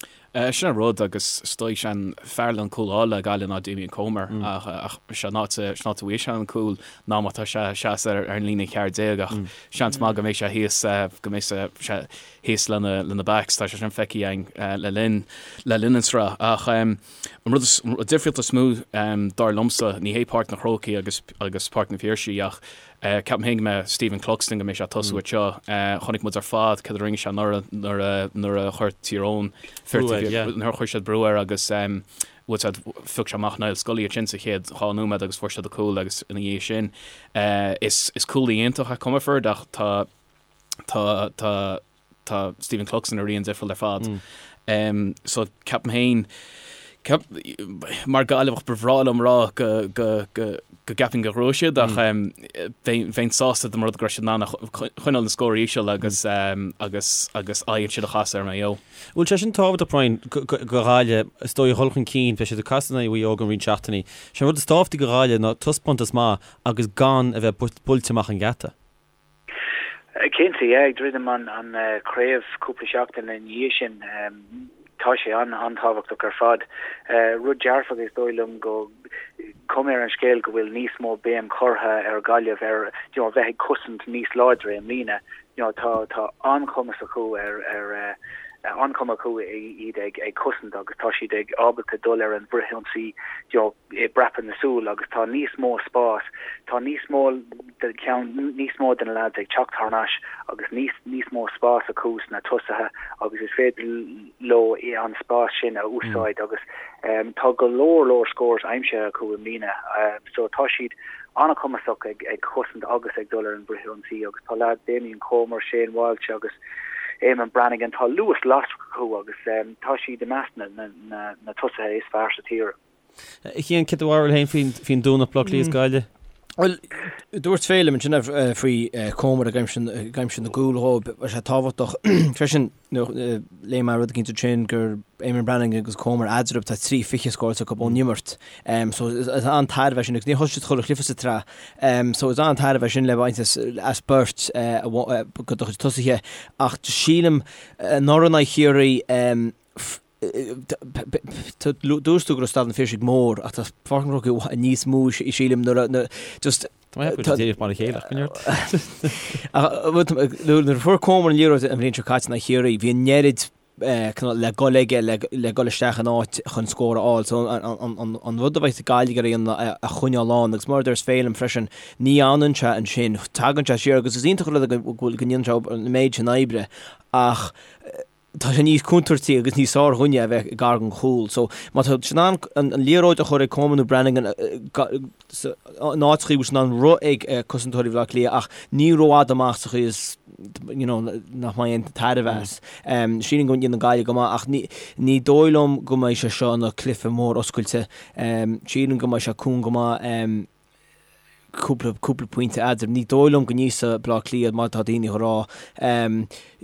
Sin an rud agus is dóigh sé an fear le an cúl a fháil le Gaillimh ná Damien Comer ach ach sé an áit sin áit a bhfaighidh sé an cúl ná má tá sé ag seasamh ar an líne 14 ach seans maith go mbeidh sé thíos go mbeidh sé thíos lena lena backs tá sé sin feicthe againn le linn le linn an sraith ach an rud is an difríocht is mó dar liomsa ní hé Páirc na Crócaigh agus agus Páirc na Phiarsaigh ach Ceapaim féin go mbeidh Stephen Cluxton go mbeidh sé ag tosú anseo. Chonaic muid ar fad cad a rinne sé anuraidh nuair a nuair a chuir Tír Eoghain Brú air, yeah. nuair a chuir siad brú air agus bhuel said phioc sé amach Niall Scully ansin sa chéad dhá nóiméad agus fuair siad an cúl agus ina dhiaidh sin is is cúlaí iontach é Comerford ach tá tá tá tá Stephen Cluxton ag rith an difriúil ar fad. So ceapaim féin, ceap, mar Gaillimheach ba bhreá liom rá go, go, go, go gceapaim go ngnóthóidh siad ach bheinn, bheinn sásta dá mba rud go raibh siad in ann a choinneáil na scór íseal agus, agus, agus aghaidh ansin a chasadh ar Maigh Eo. Bhfuil sé sin tábhachtach Brian, go, go, go Ghaillimh, is dóigh a dhul chun cinn, beidh siad ag casadh in aghaidh Mhaigh Eo i gceann roinnt seachtainí. Sé an rud is tábhachtaí go Ghaillimh ná taispeántas maith agus gan a bheith buailte amach an geata. Cinnte, yeah, ag druidim an chraobh cúpla seachtain ina dhiaidh sin, tá sé an-tábhachtach ar fad. Rud dearfach is dóigh liom go cuma ar an scéal go bhfuil níos mó béim curtha ar Ghaillimh ar you know, bheith ag cosaint níos láidre i mbliana. You know, tá tá an-chumas acu ar ar an-chuma acu iad ag ag cosaint agus tá siad ag ábalta dul ar an bhfrithionsaí you know, i bpreapadh na súl agus tá níos mó spás, tá níos mó de cheann, níos mó de na lads ag teacht thar n-ais agus níos, níos mó spás acu sna tosaithe agus is féidir leo an spás sin a úsáid agus tá go leor leor scores aimsithe acu i mbliana so tá siad an-chumasach ag, ag cosaint agus ag dul ar an bhfrithionsaí agus tá lads Damien Comer, Shane Walsh agus Eamonn Brannigan, tá luas lasrach acu agus tá siad i measc na, na, na, na tosaithe is fearr sa tír. A Chian, céard do bharúil féin faoin faoin Domhnach Bleá Cliath is Gaillimh? Bhuel, dúirt Féilim ansin faoi Comer ag aimsiú ag aimsiú na gcúl dhóibh, bheadh sé tábhachtach freisin léigh mé rud eicínt ansin gur Eamonn Brannigan agus Comer eadarthu tá 3 20 scóráilte acu ón imirt. So is an-tairbhe é sin agus níor thosaigh siad chuile chluiche sa tsraith. So is an-tairbhe é sin le baint as as beirt go do chuid tosaithe ach sílim anuraidh in aghaidh Chiarraí Dúirt tú go raibh Staid an Phiarsaigh mór ach tá Páirc an Chrócaigh níos mó sílim nuair a just Tá mé ag díreach mar a chéile ach go neart. Nuair a fuair Comer an liathróid an bhliain seo caite in aghaidh Chiarraí bhí an oiread le dul aige le dul isteach in áit chun scór a fháil. So an rud a bheidh Gaillimh ag iarraidh a choinneáil ann agus mar a deir Féilim freisin ní fhanann sé ansin, tagann sé siar agus is iontach an rud go ndéanann sé an méid sin oibre ach tá sé níos contúirtí agus níos sárdhuine a bheith gar don chúl. So má tá siad in ann an liathróid a chur ag Comer nó Brannigan in áit chaoi bhfuil siad in ann rith ag cosantóirí Bhaile Átha Cliath ach ní rófhada amach sa chaoi is you know nach mbeidh aon tairbhe as. Sílim go ndéanann Gaillimh go maith ach ní ní dóigh liom go mbeidh sé seo ina cluiche mór oscailte. Sílim go mbeidh sé cúng go maith. cúpla, cúpla pointe eadarthu. Ní dóigh liom go n-íosfaidh Bleá Cliath mar atá daoine a rá.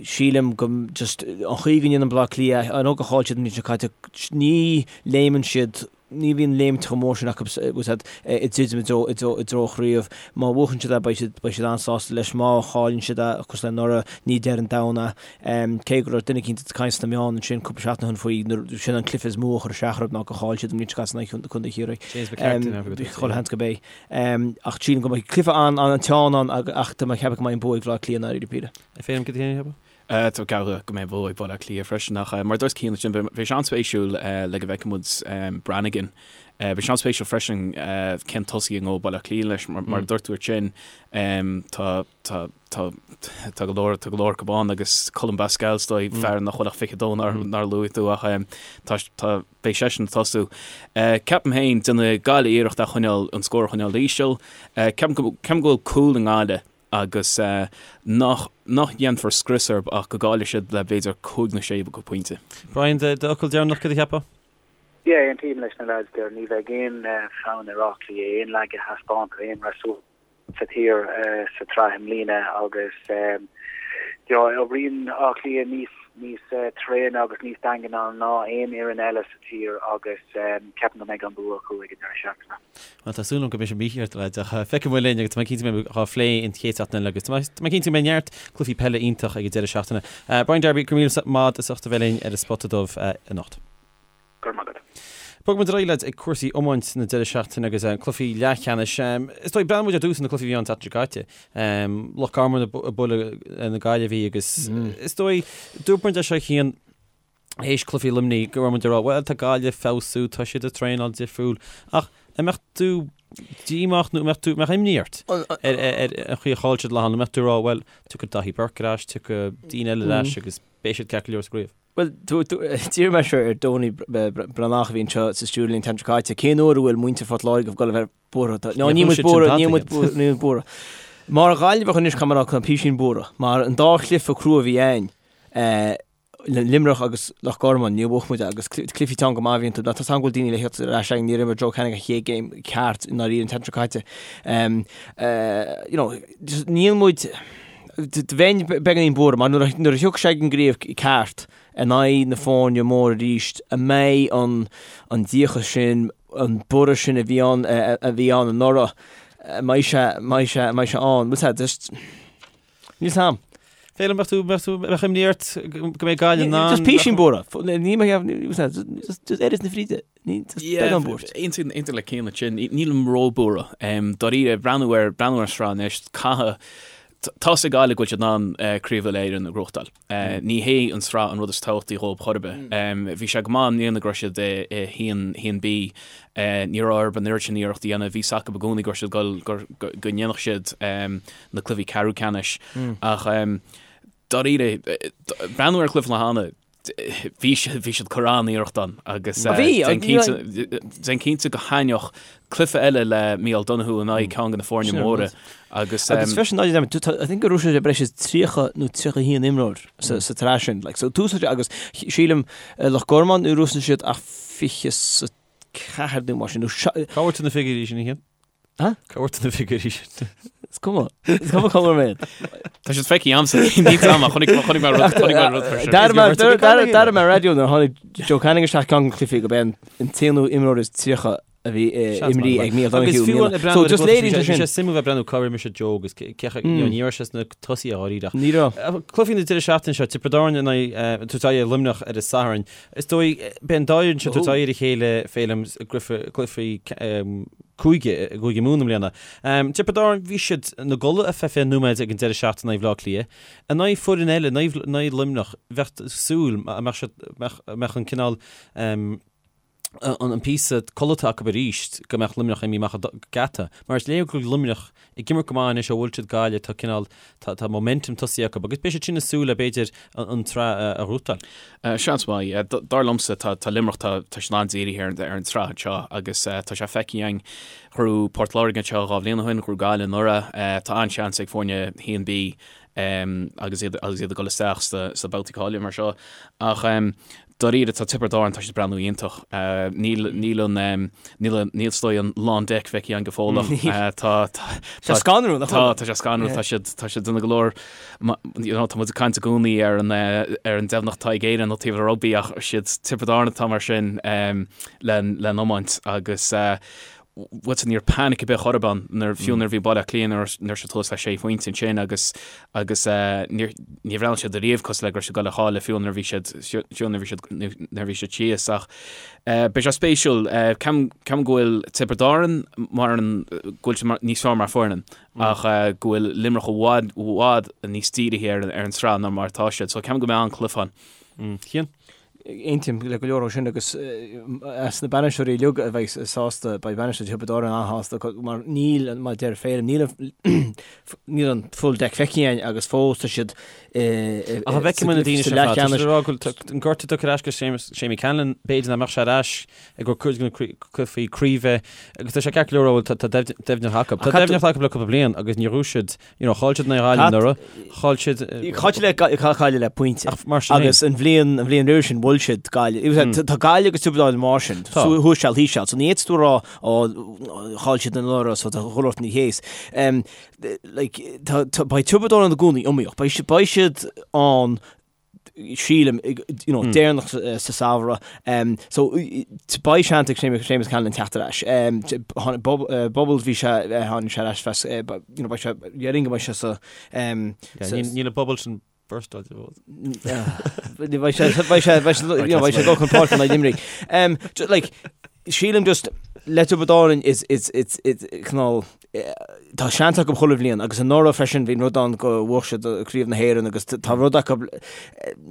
Sílim go, just, an chaoi go ndéanann Bleá Cliath, I know gur chaill siad an bhliain seo caite, ní léimeann siad, ní bhíonn léimt chomh mór sin acu ag druidim i dtreo, i dtreo, i dtreo chraobh. Má bhuachann siad é beidh siad, beidh siad an-sásta leis. Má chailleann siad é, cosúil le anuraidh, ní deireadh an domhain é. Cé go raibh duine eicínt ag caint sna meáin ansin cúpla seachtain ó shin faoi nuair sin an cluiche is mó a chuir isteach orthu ná gur chaill siad an bhliain seo caite in aghaidh Contae Chiarraí. James McCarthy an athraigh Chuile sheans gurb é. Ach sílim go mbeidh cluiche an-teann ann ach tá mé ag ceapadh go mbeidh an bua ag Bhaile Átha Cliath i ndáiríre píre. Féilim cad é féin a cheapadh? Tá mé ag ceapadh go mbeidh an bua ag Baile Átha Cliath freisin ach mar a dúirt Cian ansin beidh sé an-spéisiúil le go bhfeicfidh muid Brannigan. Beidh sé an-spéisiúil freisin cén tosaí a ngabhfaidh Baile Átha Cliath leis mar a dúirt tú ansin tá tá Tá tá go leor tá go leor acu ann agus Colm Basquel is dóigh fear nach bhfuil ach 22 nár nár luaigh tú ach tá tá beidh seisean ag tosú. Ceapaim féin déanfaidh Gaillimh iarracht a choinneáil an scór a choinneáil íseal. Ceapaim go ceapaim go bhfuil cúl i nGaillimh. agus nach nach ndéanfar scrios orthu ach go gcaillfidh siad le b'fhéidir cúig nó sé pointe. Brian, d'fhocal deireanach, cad a cheapfá? Yeah, aontaím leis na lads there. Ní bheidh aon fonn ar Áth Cliath aon laige a thaispeáint ar aon fhreasúra sa tír sa tsraith i mbliana agus you know, oibríonn Áth Cliath níos níos tréine agus níos daingne ná aon fhoireann eile sa tír agus ceapaim go mbeidh an bua acu ag an deireadh seachtaine. Bhuel, tá súil agam go mbeidh sé mícheart, lads, ach feicfidh muid linn agus tá mé cinnte go mbeidh á phlé an chéad seachtain eile agus tá mé cinnte go mbeidh neart cluichí peile iontach ag an deireadh seachtaine. Brian Darby, go raibh míle maith agat as ucht a bheith linn ar an Spota Dubh anocht. Go raibh maith agat. Bogfaidh muid ar aghaidh, lads, ag cúrsaí iomáint na deireadh seachtaine agus cluichí leathcheannais. Is dóigh, breathnóidh muid ar dtús ar na cluichí a bhí ann an tseachtain seo caite. Loch Garman ag bualadh na Gaillimhe agus is dóigh, dúirt muid é seo Cian, théis cluichí Luimnigh go raibh muid ag rá, bhuel, tá Gaillimh ag feabhsú, tá siad ag traenáil difriúil. Ach an mbeadh tú díomách nó an mbeadh tú, mbeadh imní ort ar an chaoi a chaill siad lá, nó an mbeadh tú ag rá, bhuel, tiocfaidh Daithí Burke ar ais, tiocfaidh daoine eile ar ais agus beidh siad ceart go leor sa gcraobh. Bhuel, d'iarr mé seo ar Donie Breathnach a bhí anseo sa stiúideo linn an tseachtain seo caite, cén uair a bhfuil muintir Phort Láirge ag dul a bheith buartha? No, níl muid buartha, níl muid buartha, níl muid buartha. Mar Ghaillimheach anois, caithfidh mé a rá, tá písín buartha. Mar an dá chluiche crua a bhí againn, Luimneach agus Loch Garman, níor bhuaigh muid agus cluichí teann go maith a bhí iontu. Tá a fhios agam go bhfuil daoine le theacht ar ais againn, níor imir Joe Canning a chéad game ceart i ndáiríre an tseachtain seo caite. You know, níl muid, Bheinn beagáinín buartha mar nuair a thiocfaidh sé ag an gcraobh ceart in aghaidh na foirne móra arís, an mbeidh an an díocas sin, an borradh sin a bhí ann a bhí ann anuraidh, an mbeidh sé, an mbeidh sé, an mbeidh sé ann? Bhfuil sé just, níl 's a'm. Féilim, mbeadh tú, mbeadh tú, mbeadh imní ort go mbeidh Gaillimh in ann? Just písín buartha. Ní mbeidh, just just oiread na fríde. Ní, just beagán buairt. Aontaím aontaím le Cian ansin. Nílim róbhuartha. Dáiríre, breathnú ar breathnú ar an sraith anois, caithfidh tá's ag Gaillimh go bhfuil siad in ann Craobh Uile-Éireann a ghnóthachtáil. Ní hé an sraith an rud is tábhachtaí dhóibh chor ar bith. Bhí sé go maith i mbliana go raibh siad i haon haon B. Ní raibh orthu an oiread sin iarracht a dhéanamh. Bhí 's acu i gcónaí go raibh siad ag dul go go ndéanfadh siad na cluichí ceathrú ceannais. Ach dáiríre, breathnú ar chluiche na hAna, bhí siad, bhí siad ag cur an-iarracht ann agus Bhí, déan cinnte, déan cinnte go thaitneodh cluiche eile le Micheál Donoghue in aghaidh ceann de na foirne móra agus Agus freisin, I think go raibh sé breis is 30 nó 31 imreoir sa sa tsraith sin, like, so tús agus sílim Loch Garman níor úsáid siad ach 24 nó mar sin, nó Cá bhfuair tú na figiúirí sin, a Chian? Cá bhfuair tú na figiúirí sin? Is cuma. Is cuma cá bhfuair mé iad. Tá siad feicthe a'msa. Ní am ach chonaic chonaic mé rud chonaic mé rud for sure. D'airigh mé d'airigh mé raidió nuair a tháinig Joe Canning isteach ceann de na cluichí gurb é an t-aonú imreoir is 30 a bhí imrithe ag Micheál Agus Donoghue i fiú mbliana. So just léiríonn sé sin. Bhí sé suimiúil bheith breathnú cá raibh mise Joe agus cé ní raibh sé sna tosaithe dháiríre. Ní raibh. Cluichí na deireadh seachtaine seo, Tiobraid Árann in aghaidh tabhairt aghaidh ar Luimneach ar an Satharn. Is dóigh, beidh an dá fhoireann seo tabhairt aghaidh ar a chéile Féilim i gcluichí cúige, i gCúige Mumhan i mbliana. Tiobraid Árann, bhí siad ina gcodladh ar feadh 20 nóiméad ag an deireadh seachtaine in aghaidh Bhaile Átha Cliath. In aghaidh foireann eile, in aghaidh Luimneach, bheadh súil, mbeadh siad, mbeadh an cineál, an píosa codlata acu arís go mbeadh Luimneach imithe amach an geata. Mar is léir go bhfuil Luimneach ag imirt go maith anois ó bhuail siad Gaillimh, tá cineál, tá momentum tosaithe acu agus beidh siad sin ag súil le b'fhéidir an tsraith a ghnóthachtáil. Seans maith. Dar liomsa tá Luimneach, tá siad an-dírithe ar an tsraith anseo agus tá sé feicthe againn. Ghnóthaigh Port Láirge anseo dhá bhliain ó shin, ghnóthaigh Gaillimh anuraidh. Tá an-seans ag foirne 1B agus iad agus iad ag dul isteach sna babhtaí cáilithe mar seo. Ach dáiríre tá Tiobraid Árann, tá siad ag breathnú iontach. Níl níl an níl an níl is dóigh an lán deic feicthe againn go fóill ach tá tá Tá scanrúil, nach bhfuil? Tá tá sé scanrúil, tá siad tá siad ag déanamh go leor you know tá muid ag caint i gcónaí ar an ar an deimhneacht atá ag Éirinn ó taobh le rugbaí ach siad Tiobraid Árann atá mar sin le le n-iomáint agus bhuel ní raibh panic ar bith chor ar bith ann nuair fiú nuair a bhí Baile Átha Cliath nuair nuair siad thuas le sé phointe ansin agus agus níor ní bhreathnaigh siad ariamh cosúil le go raibh siad ag dul a chailleadh fiú nuair a bhí siad fiú nuair a bhí siad nuair a bhí siad síos ach beidh sé spéisiúil ceapaim ceapaim go bhfuil Tiobraid Árann mar an go bhfuil siad mar níos fearr mar foireann ach go bhfuil Luimneach i bhfad i bhfad níos dírithe ar an ar an tsraith ná mar atá siad so ceapaim go mbeidh an-chluiche ann. Cian? Aontaím le go leor ó sin agus as na bainisteoirí uilig a bheidh sásta, beidh bainisteoir Thiobraid Árann an-shásta mar níl, mar a deir Féilim, níl an níl an full deck feicthe againn agus fós tá siad Ach an bhfeicfidh muid na daoine sin ar fad? Tá siad ag rá go bhfuil an gortú tugtha ar ais go Seamie Callanan, b'fhéidir nach mbeadh sé ar ais i gcomhair cuid de na cluichí craoibhe agus tá sé ceart go leor a rá tá deimhneacht acu. Tá deimhneacht acu le cúpla bliain agus níor ghnóthaigh siad You know, chaill siad in aghaidh Ghaillimh anuraidh, chaill siad. Chaill siad le Gaillimh le pointe. Ach mar sin Agus an bhliain, an bhliain roimhe sin, bhuail siad Gaillimh. Mm. Tá Gaillimh agus Tiobraid Árann mar sin, Tá. thuas seal thíos seal. So ní fhéadfadh tú a rá, ó, chaill siad anuraidh, so tá chuile shórt ní théis. Um, like, tá, tá, beidh Tiobraid Árann i gcónaí iomaíoch. Beidh siad, beidh siad ann sílim, you know, deireanach sa samhradh. So, beidh seans ag Séamus Callanan teacht ar ais. Bubbles, bhí sé, tháinig sé ar ais fes, you know, beidh sé, déarfainn go mbeidh sé sa, Níl an bubble sin burstáilte fós. Beidh sé, beidh sé, beidh sé, you know, beidh sé ag dul chun páirce in aghaidh Luimnigh. Like, sílim just, le Tiobraid Árann is, is, it's, it's, cineál, Tá seans acu chuile bhliain agus anuraidh freisin bhí an rud ann go bhuaigh siad Craobh na hÉireann agus tá rud acu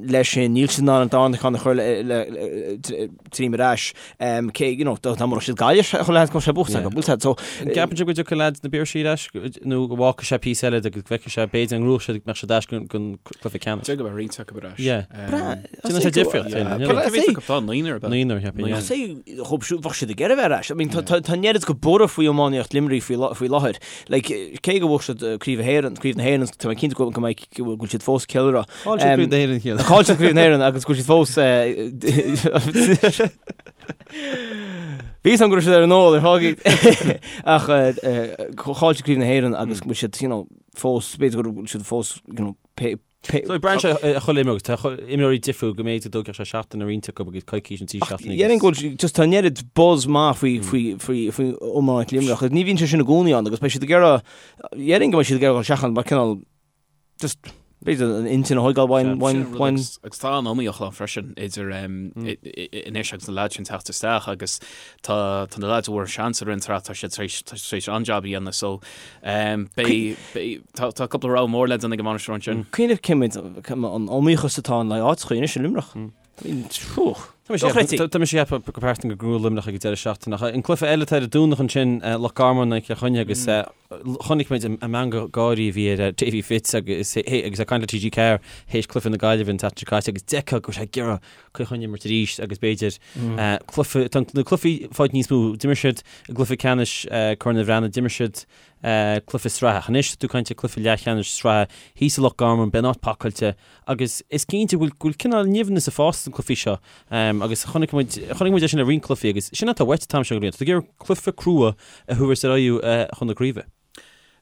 leis sin, níl siad in ann an darna ceann a chur tríom ar ais. Cé, you know, dá mbuafadh siad Gaillimh chuile sheans go mbeadh sé buaite acu, bhfuil so. An gceapann sibh go dtiocfaidh leaids na Piarsaigh ar ais nó go bhfágfaidh sé píosa eile agus go bhfeicfidh sé b'fhéidir an ngnóthóidh siad go mbeadh siad ar ais don cluiche ceannais? Deir go mbeidh roinnt acu ar ais. Yeah. Déanann sé difríocht. Cé mhéad acu atá? Naonúr ab ea? Naonúr, cheapfainn, yeah. Bheadh siad ag iarraidh a bheith ar ais. I mean, tá an oiread go borradh faoi iománaíocht Luimnigh faoi láthair. Like, cé go bhfuair siad Craobh na hÉireann, Craobh na hÉireann, tá mé cinnte go mbeidh, go bhfuil siad fós ag ceiliúradh. Chaill siad Craobh na hÉireann cheana. Chaill siad Craobh na hÉireann agus go bhfuil siad fós Bhí san go raibh siad ar an ól ar fágaí. Ach chaill siad Craobh na hÉireann agus go bhfuil siad, you know, fós, b'fhéidir go bhfuil siad fós, you know, pé, So braitheann sé ar chuile imreoir agus tá imreoirí difriúil go mb'fhéidir go dtógfadh sé seachtain ar roinnt acu agus coicís nó 3 seachtainí agus. Déarfainn go bhfuil just tá an oiread buzz maith faoi faoi faoi faoi iomáint Luimneach agus ní bhíonn sé sin i gcónaí ann agus beidh siad ag iarraidh déarfainn go mbeidh siad ag iarraidh dul isteach ann mar cineál just b'fhéidir an intinn a thógáil uainn uainn uainn. Agus tá an iomaíocht ann freisin idir anois agus na lads sin teacht isteach agus tá tá na lads a bhfuair seans i rith an tsraith tá siad tar éis tá siad tar éis an-jab a dhéanamh so beidh beidh tá tá cúpla rogha mór le déanamh ag an mbainisteoir ansin. Cuimhnigh cé mhéad an iomaíochas atá ann le áiteacha anois i Luimneach. Tá mise ag ceapadh go pearsanta go ngnóthóidh Luimneach ag an deireadh seachtaine ach an cluiche eile atá ar an Domhnach ansin Loch Garman in aghaidh Chill Chainnigh agus chonaic muid an meangadh gáirí a bhí ar Davy Fitz agus agus é ag caint le TG4 théis cluiche na Gaillimhe an tseachtain seo caite agus d'fheicfeá go raibh sé ag iarraidh Cill Chainnigh a imirt arís agus b'fhéidir cluiche, tá na cluichí ag fáil níos mó, d'imir siad i gcluiche ceannais Corn Uí Bhraonáin, d'imir siad cluiche sraithe. Ach anois tá tú ag caint ar cluiche leathcheannais sraithe thíos i Loch Garman, beidh an áit pacáilte agus is cinnte go bhfuil, go bhfuil cineál nimhneas ag fás sna cluichí seo agus chonaic muid, chonaic muid é sin le roinnt cluichí agus sin atá uait an t-am seo den bhliain, tá tú ag iarraidh cluiche crua a thabhairt ar aghaidh chun na craoibhe.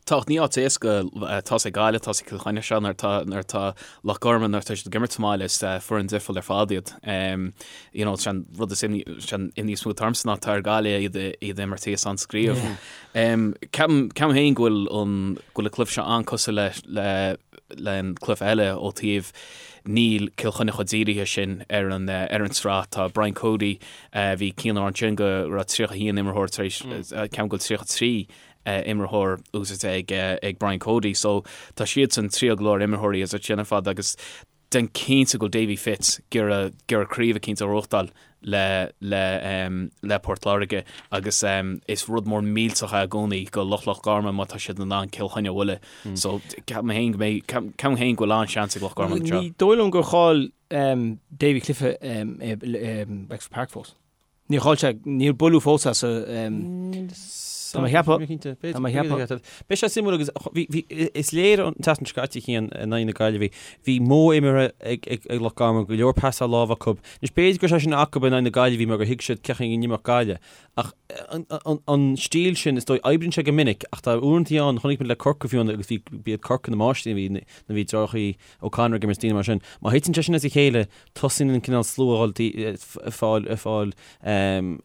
Tá, ach ní áit éasca, tá's ag Gaillimh, tá's ag Cill Chainnigh seo nuair atá, nuair atá Loch Garman, nuair atá siad ag imirt sa mbaile, is foireann difriúil ar fad iad. You know, sé an rud is imní, sé an imní is mó atá ormsa ná tá ar Gaillimh iad, iad a imirt thíos sa gcraobh. Ceapaim, ceapaim féin go bhfuil an, go bhfuil an cluiche seo an-cosúil le, le, le an cluiche eile ó taobh níl Cill Chainnigh chomh dírithe sin ar an, ar an tsraith. Tá Brian Cody, bhí Cian ansin go raibh 31 imreoir tar éis, ceapaim go bhfuil 33 imreoir úsáidte ag ag Brian Cody so tá siadsan triail go leor imreoirí as sin ar fad agus déan cinnte go bhfuil Davy Fitz ag iarraidh ag iarraidh craobh eicínt a ghnóthachtáil le le le Port Láirge agus is rud mór millteach é i gcónaí go lucht Loch Garman má tá siad in ann Cill Chainnigh a bhualadh so ceapaim féin go mbeidh ceapaim féin go bhfuil an-seans ag Loch Garman anseo. Ní dóigh liom gur chaill Davy cluiche i Wexford Park fós. Níor chaill sé, níor buaileadh fós as a. Tá mé a cheapadh. Tá mé a cheapadh. Beidh sé suimiúil agus bhí, bhí, is léir an tseachtain seo caite Cian in aghaidh na Gaillimhe, bhí modh imeartha ag, ag, ag Loch Garman, go leor pasáil láimhe acu. Anois b'fhéidir go raibh sé sin acu in aghaidh na Gaillimhe mar gur thuig siad cén chaoi a n-imreodh Gaillimh. Ach an, an, an stíl sin, is dóigh, oibríonn sé go minic ach tá uaireanta ann, chonaic muid le Corcaigh fiú agus bhí, b'iad Corcaigh na máistrí a bhí, nuair a bhí deartháireacha O'Connor ag imirt daoine mar sin. Má thiteann sé sin as a chéile, tosaíonn an cineál slua a dhul ag fáil, ag fáil,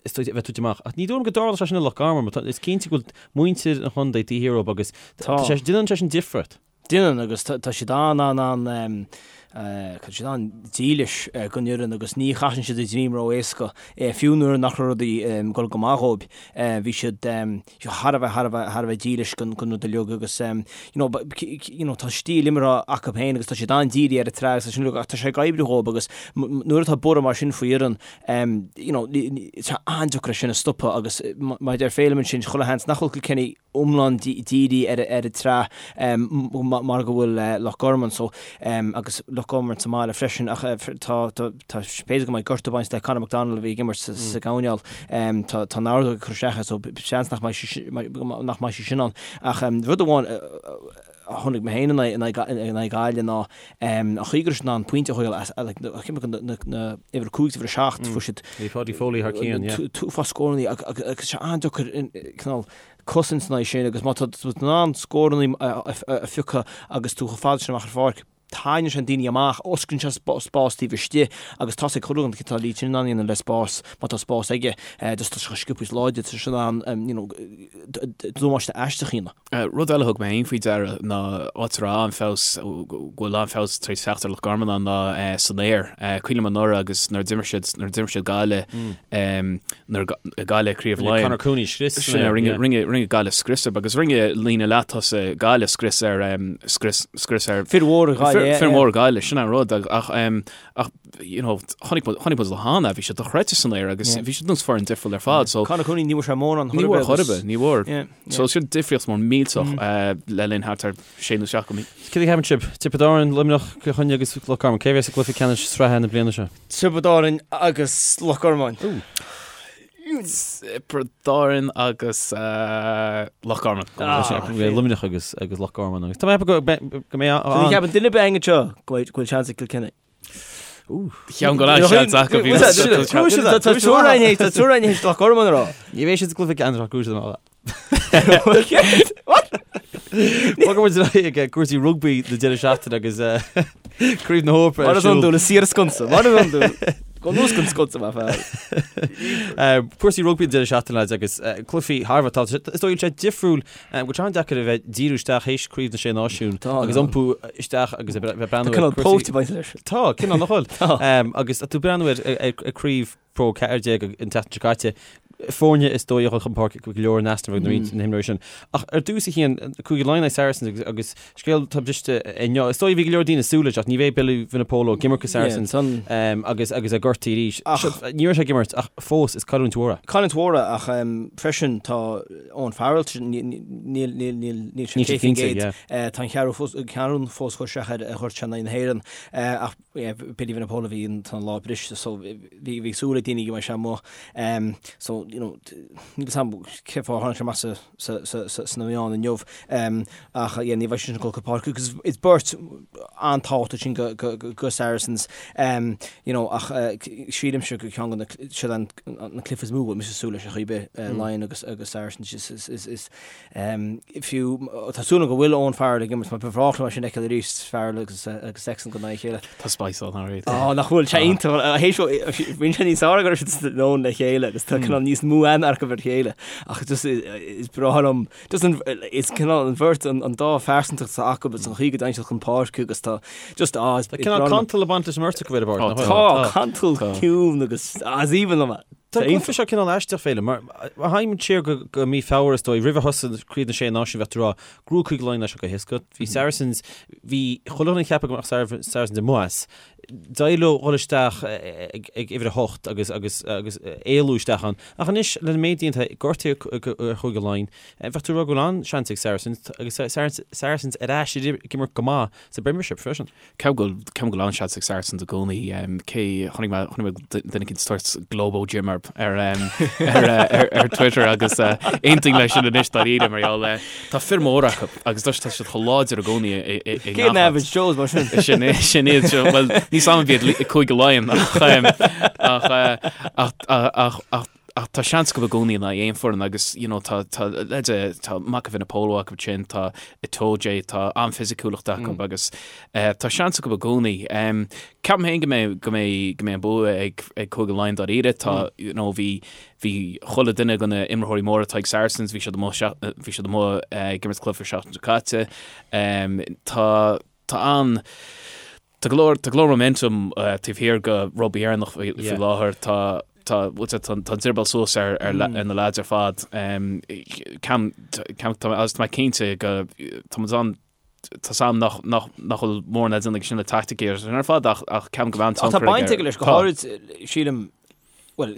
is dóigh, a bheith tite amach. Ach ní dóigh liom go dtarlódh sé sin i Loch Garman, mar tá, is cinnte go bhfuil muintir an chontae taobh thiar dhóibh agus tá sé, déanann sé sin difríocht. Déanann agus tá siad an, an, an. Tá siad an-dílis don fhoireann agus ní chasann siad a ndroim ró-éasca, fiú nuair nach raibh rudaí ag dul go maith dhóibh. Bhí siad thar a bheith, thar a bheith, thar a bheith dílis don rud uilig agus you know, you know, tá stíl imeartha acu féin agus tá siad an-dírithe ar an tsraith agus sin uilig ach tá sé ag oibriú dhóibh agus nuair atá borradh mar sin faoi fhoireann, you know, tá an-deacair é sin a stopadh agus mar a deir Féilim ansin, chuile sheans nach bhfuil Kilkenny iomlán dírithe ar an tsraith mar go bhfuil Loch Garman so agus Loch Garman sa mbaile freisin ach tá tá b'fhéidir go mbeidh gortú ag baint le Conor McDonald a bhí ag imirt sa gcoirnéal tá tá an ordóg ag cur isteach air so seans nach mbeidh sé nach mbeidh sé sin ann ach rud amháin a chonaic mé féin in aghaidh Gaillimh ná an chaoi go raibh siad in ann pointe a thógáil as like na na uimhir 5 uimhir 7 fuair siad Bhí Paudie Foley thar cionn, yeah. uafás scórannaí agus sé an-deacair cineál cosaint in aghaidh sin agus má tá tú in ann scórannaí a phiocadh agus tú chomh fada sin amach ar pháirc, tarraingíonn sé daoine amach, osclaíonn sé spás taobh istigh agus tá sé ag cur an tá Lee Chin in ann a dhéanamh le spás, má tá spás aige, just tá sé chomh sciobtha is láidir, tá sé in ann you know damáiste aisteach a dhéanamh. Rud eile a thug mé féin faoi deara ná áit a raibh an-fheabhas, go bhfuil an-fheabhas tar éis teacht ar Loch Garman ann ná san aer. Cuimhin liom anuraidh agus nuair a d'imir siad, nuair a d'imir siad Gaillimh, nuair a Gaillimh Craobh Rinne Laighean. Conor Cooney scrios san aer, yeah. Rinne, rinne Gaillimh scrios air agus rinne líne leath-tosaigh Gaillimh scrios ar, scrios, scrios ar. Fir mhóra Ghaillimh, yeah. Fir mhóra Gaillimh, sin an rud ach, ach you know, chonaic muid, chonaic muid le hAnna, bhí siad dochreidte san aer agus bhí siad nós foireann difriúil ar fad. So, Conor Cooney, ní bhfuair sé mórán chor ar bith. Ní bhfuair chor ar bith, ní bhfuair. Yeah, yeah. So sin difríocht mór millteach le linn thart ar sé nó seacht mí. Céard a cheapann sibh? Tiobraid Árann, Luimneach, Cill Chainnigh agus Loch Garman. Cé a bheas i gcluiche ceannais sraithe na bliana seo? Tiobraid Árann agus Loch Garman. Tiobraid Árann agus Loch Garman. Luimneach agus agus Loch Garman agus tá mé go go mbeidh an. Ní cheapann duine ar bith againn anseo go bhfuil seans ag Kilkenny. Cheapaim go bhfuil seans acu bhí Tá triúr againn théis Loch Garman a rá. Ní bheidh siad sa gcluiche ceannais ach go bhfuil siad Bogfaidh muid ar aghaidh ag cúrsaí rugbaí na deireadh seachtaine agus Craobh na hEorpa ar siúl. Mar is iondúil, is siar an sconsa. Mar is iondúil. Go luas an sconsa, mar fear. Cúrsaí rugbaí na deireadh seachtaine lads agus cluichí thar a bheith tábhachtach. Is dóigh sé difriúil go bhfuil sé an-deacair a bheith díriú isteach théis Craobh na Sé Náisiún agus iompú isteach agus a bheith breathnú ar cúrsaí. Tá cineál póit ag baint leis. Tá, cineál nach bhfuil. Agus tú breathnú ar Craobh Pro 14 an tseachtain seo caite, foirne is dóigh a dhul chun páirce go leor in easnamh ag roinnt na himreoirí sin. Ach ar dtús a Chian, Cúige Laighean agus Saracens agus scéal atá briste inniu. Is dóigh bhí go leor daoine ag súil leis ach ní bheidh Billy Vunipola ag imirt do Saracens agus agus é gortaithe arís. Ní raibh sé ag imirt ach fós is cailliúint mhór é. Cailliúint mhór é ach freisin tá Owen Farrell níl níl sé 100%. Tá an cheathrú fós curtha isteach air a ghoirt sé in aghaidh na hÉireann ach Billy Vunipola bhí an tá an lámh briste so bhí bhí súil ag daoine go mbeidh sé amuigh um, so you know níl 'fhios a'm cé fáth tháinig sé amach sa sa sa sa sna meáin inniu um, ach yeah, ní bheidh sé sin ag dul go páirc agus is beirt an-tábhachtach sin go go go go Saracens um, you know ach uh, sílimse go ceann de na siad an na cluiche is mó mise súil leis ar chaoi ar bith uh, Laighean agus agus Saracens is is is, is Fiú, tá súil agam go bhfuil Owen Farrell ag imirt mar ba bhreá liom é sin a fheiceáil arís, Farrell agus Sexton in aghaidh a chéile. Tá spice ann alright. Á, nach bhfuil, sé iontach, théis bhí sé níos fearr go raibh siad san ann le chéile agus tá cineál níos mó aithne acu ar a chéile ach just is breá liom, just an, is cineál an bheirt, an dá phearsantacht atá acu agus an chaoi go dtéann siad chun páirce agus tá just, á, is breá liom. Tá cineál cantal ag baint leis an mbeirt acu ar an bpáirc, nach bhfuil? Tá, cantal ciúin agus, á, is aoibhinn liom é. Tá an cluiche seo cineál aisteach, Féilim, mar má théimid siar go mí Feabhra is dóigh, roimh a thosaigh Craobh na Sé Náisiún bheadh tú ag rá gur bhuaigh Cúige Laighean é seo go héasca. Bhí Saracens, bhí chuile dhuine ag ceapadh go mbeadh Saracens amuigh as. D'éirigh leo dhul isteach ag uimhir a hocht agus agus agus éalú isteach ann. Ach anois, leis an méid déanta, gortaithe ar Chúige Laighean, bheadh tú ag rá go bhfuil an-seans ag Saracens agus Saracens ar ais ag imirt go maith sa bPremiership freisin. Ceapaim go bhfuil ceapaim go bhfuil an-seans ag Saracens i gcónaí. Cé chonaic mé chonaic mé duine éicint ag tabhairt Globo Gym ar ar ar ar Twitter agus aontaím leis sin anois dáiríre mar gheall tá fir móra acu agus tá siad chomh láidir i gcónaí i i i Cé na Average Joes mar sin? Sin sin iad seo bhuel níl 'fhios a'm an iad Cúige Laighean ach ach ach ach ach Ach tá seans acu i gcónaí in aghaidh aon foireann agus you know tá tá leide tá Mako Vunipola acu sin, tá Itoje, tá an-fhisiciúlacht acu agus eh, tá seans acu i gcónaí. Um, ceapaim féin go mbeidh go mbeidh go mbeidh an bua ag ag Cúige Laighean dáiríre. Tá you know bhí bhí chuile duine de na imreoirí móra atá ag Saracens, bhí siad amuigh bhí siad amuigh eh, ag imirt cluiche seachtain seo caite. Um, tá tá an. Tá go leor, tá go leor momentum taobh thiar de Rugbaí Éireannach faoi láthair. Tá, tá, bhfuil sé, tá an drioball suas ar, ar, ar na lads ar fad. Ceapaim, ceapaim, tá, agus tá mé cinnte go, tá muid an, tá 's a'm nach, nach, nach bhfuil mórán le déanamh aige sin le taicticí agus sin ar fad ach, ach ceapaim go mbeidh an tionchar aige. Tá baint aige leis, go háirid, sílim, bhuel,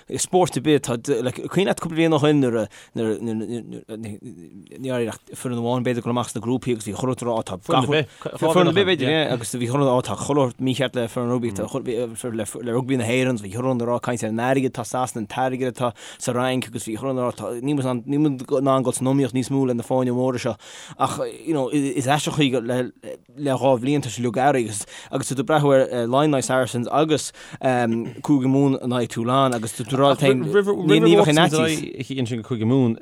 i spórt ar bith, tá, like, cuimhin leat cúpla bliain ó shin nuair a, nuair a, nuair a, ní raibh ach foireann amháin b'fhéidir ag dul amach sna grúpaí agus bhí chuile dhuine ag rá, tá Foireann ar bith, foireann ar bith b'fhéidir, yeah, agus bhí chuile dhuine ag rá, tá chuile shórt mícheart le foireann rugbaí, tá chuile, bhí, le, le rugbaí na hÉireann, bhí chuile dhuine ag rá, caint ar an airgead atá i Sasana, an t-airgead atá sa Fhrainc agus bhí chuile dhuine ag rá, tá, níl muid in ann, níl muid in ann dul san iomaíocht níos mó le na foirne móra seo. Ach, you know, is aisteach an chaoi le, le 2 bhliain tá sé uilig athraithe agus agus tú ag breathnú ar Laighin in aghaidh Saracens agus Cúige Mumhan in aghaidh Toulon agus tú ag rá leat féin ní ní bheadh aon fhaitíos. Ansin go Cúige Mumhan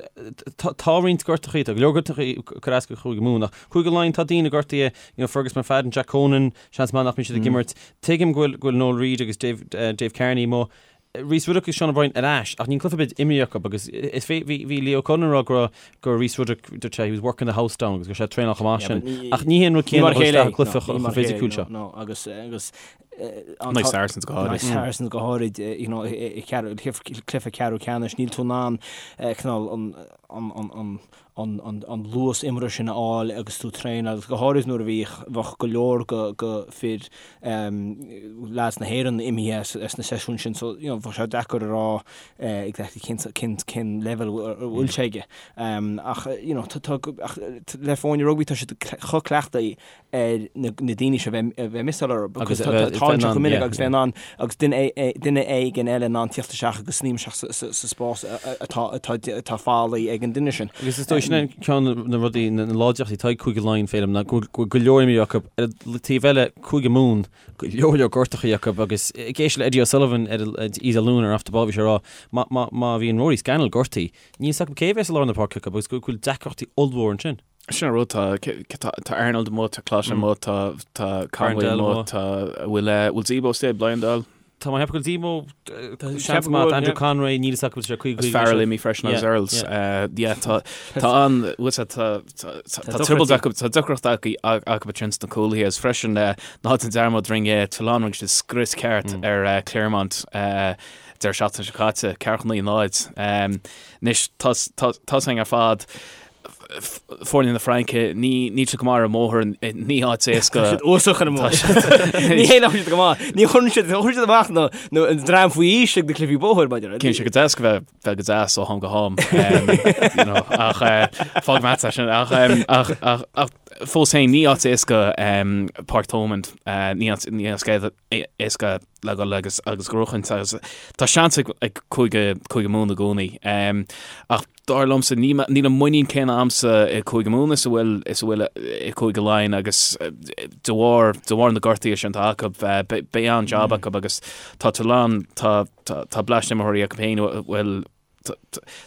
tá roinnt gortachaí tá go leor gortachaí ag cur as go Chúige Mumhan ach Cúige Laighean tá daoine gortaithe you know Fergus McFadden Jack Conan seans maith nach mbeidh siad ag imirt tuigim go bhfuil go bhfuil Noel Reid agus Dave Dave Kearney amuigh Rhys Ruddock agus Sean O'Brien ar ais ach níl cluiche ar bith imrithe acu agus is fé bhí bhí Leo Cullen ag rá go raibh go raibh Rhys Ruddock dúirt sé he was working the house down agus go raibh sé ag traenáil chomh maith sin ach ní hé an rud céanna a dhul isteach i gcluiche chomh fisiciúil seo. No agus agus In aghaidh Saracens go háirid. Saracens go háirid you know i cluiche ceathrú ceannais níl tú in ann cineál an an an an an luas imeartha sin a fháil agus tú ag traenáil agus go háirid nuair a bhíodh, bheadh go leor go fir leaids na hÉireann imithe as na seisiúin sin so you know bheadh sé deacair a rá exactly cén cén cén leibhéal a bhfuil sé aige. Ach you know tá tá ach le foirne rugbaí tá siad chomh cleachtaithe ar na daoine seo a bheith ag missáil orthu because tá tarlaíonn sé chomh minic agus bheith in ann agus duine éigin eile in ann tíocht isteach agus sníomh isteach sa spás atá fágtha ag an duine sin. Agus is dóigh sin é ceann de na rudaí, na láidreachtaí atá ag Cúige Laighean, Féilim, ná go bhfuil go leor imreoirí acu. Ar an taobh eile, Cúige Mumhan, go leor leor gortachaí acu agus ag éisteacht le Eddie O'Sullivan ar Oíche Dé Luain ar Off the Ball bhí sé ag rá má bhíonn Rory Scannell gortaithe, níl 's acu cé a bheas i lár na páirce acu agus go bhfuil deacrachtaí ollmhór ansin. Sin an rud, tá tá Arnold amuigh, tá Clotte amuigh, tá tá Conway amuigh, tá bhfuil bhfuil Zebo istigh, Bleyendaal? Tá mé ag ceapadh go bhfuil Zebo seans maith, Andrew Conway, níl 'fhios acu bhfuil sé 55 Is Farrell imithe freisin agus Earls. Yeah, tá tá an bhfuil sé tá tá trioblóid acu, tá deacracht acu acu ansin sna cúlaithe agus freisin ná déan dearmad rinne Toulon rinne siad scrios ceart ar Clermont deireadh seachtaine seo caite, 4 9 0. Anois tá tá tá sin ar fad Foirne na Fraince, ní níl siad go maith ar an mbóthar, ní áit éasca. Tá siad uafásach ar an mbóthar. Ní hé nach bhfuil siad go maith. Ní chuireann siad, chuireann siad amach na, na, an dream faoi aois ag na cluichí bóthair, maidir. Cíonn sé go deas go bheith, bheith go deas ó ham go ham. You know, ach eh, fág meat sin, ach, em, ach, ach, ach fós féin ní áit éasca em, Páirc Thomond, eh, ní áit, ní áit éasca le dhul agus agus gnóchaint agus tá seans ag, ag Cúige, Cúige Mumhan i gcónaí. Em, ach Dar liomsa, níl an muinín céanna a'msa i Cúige Mumhan is a bhfuil is a bhfuil i Cúige Laighean agus de bharr de bharr na gortuithe sin atá acu, beidh an-jab acu agus tá Toulon, tá tá bleaist imreoirí acu féin a bhfuil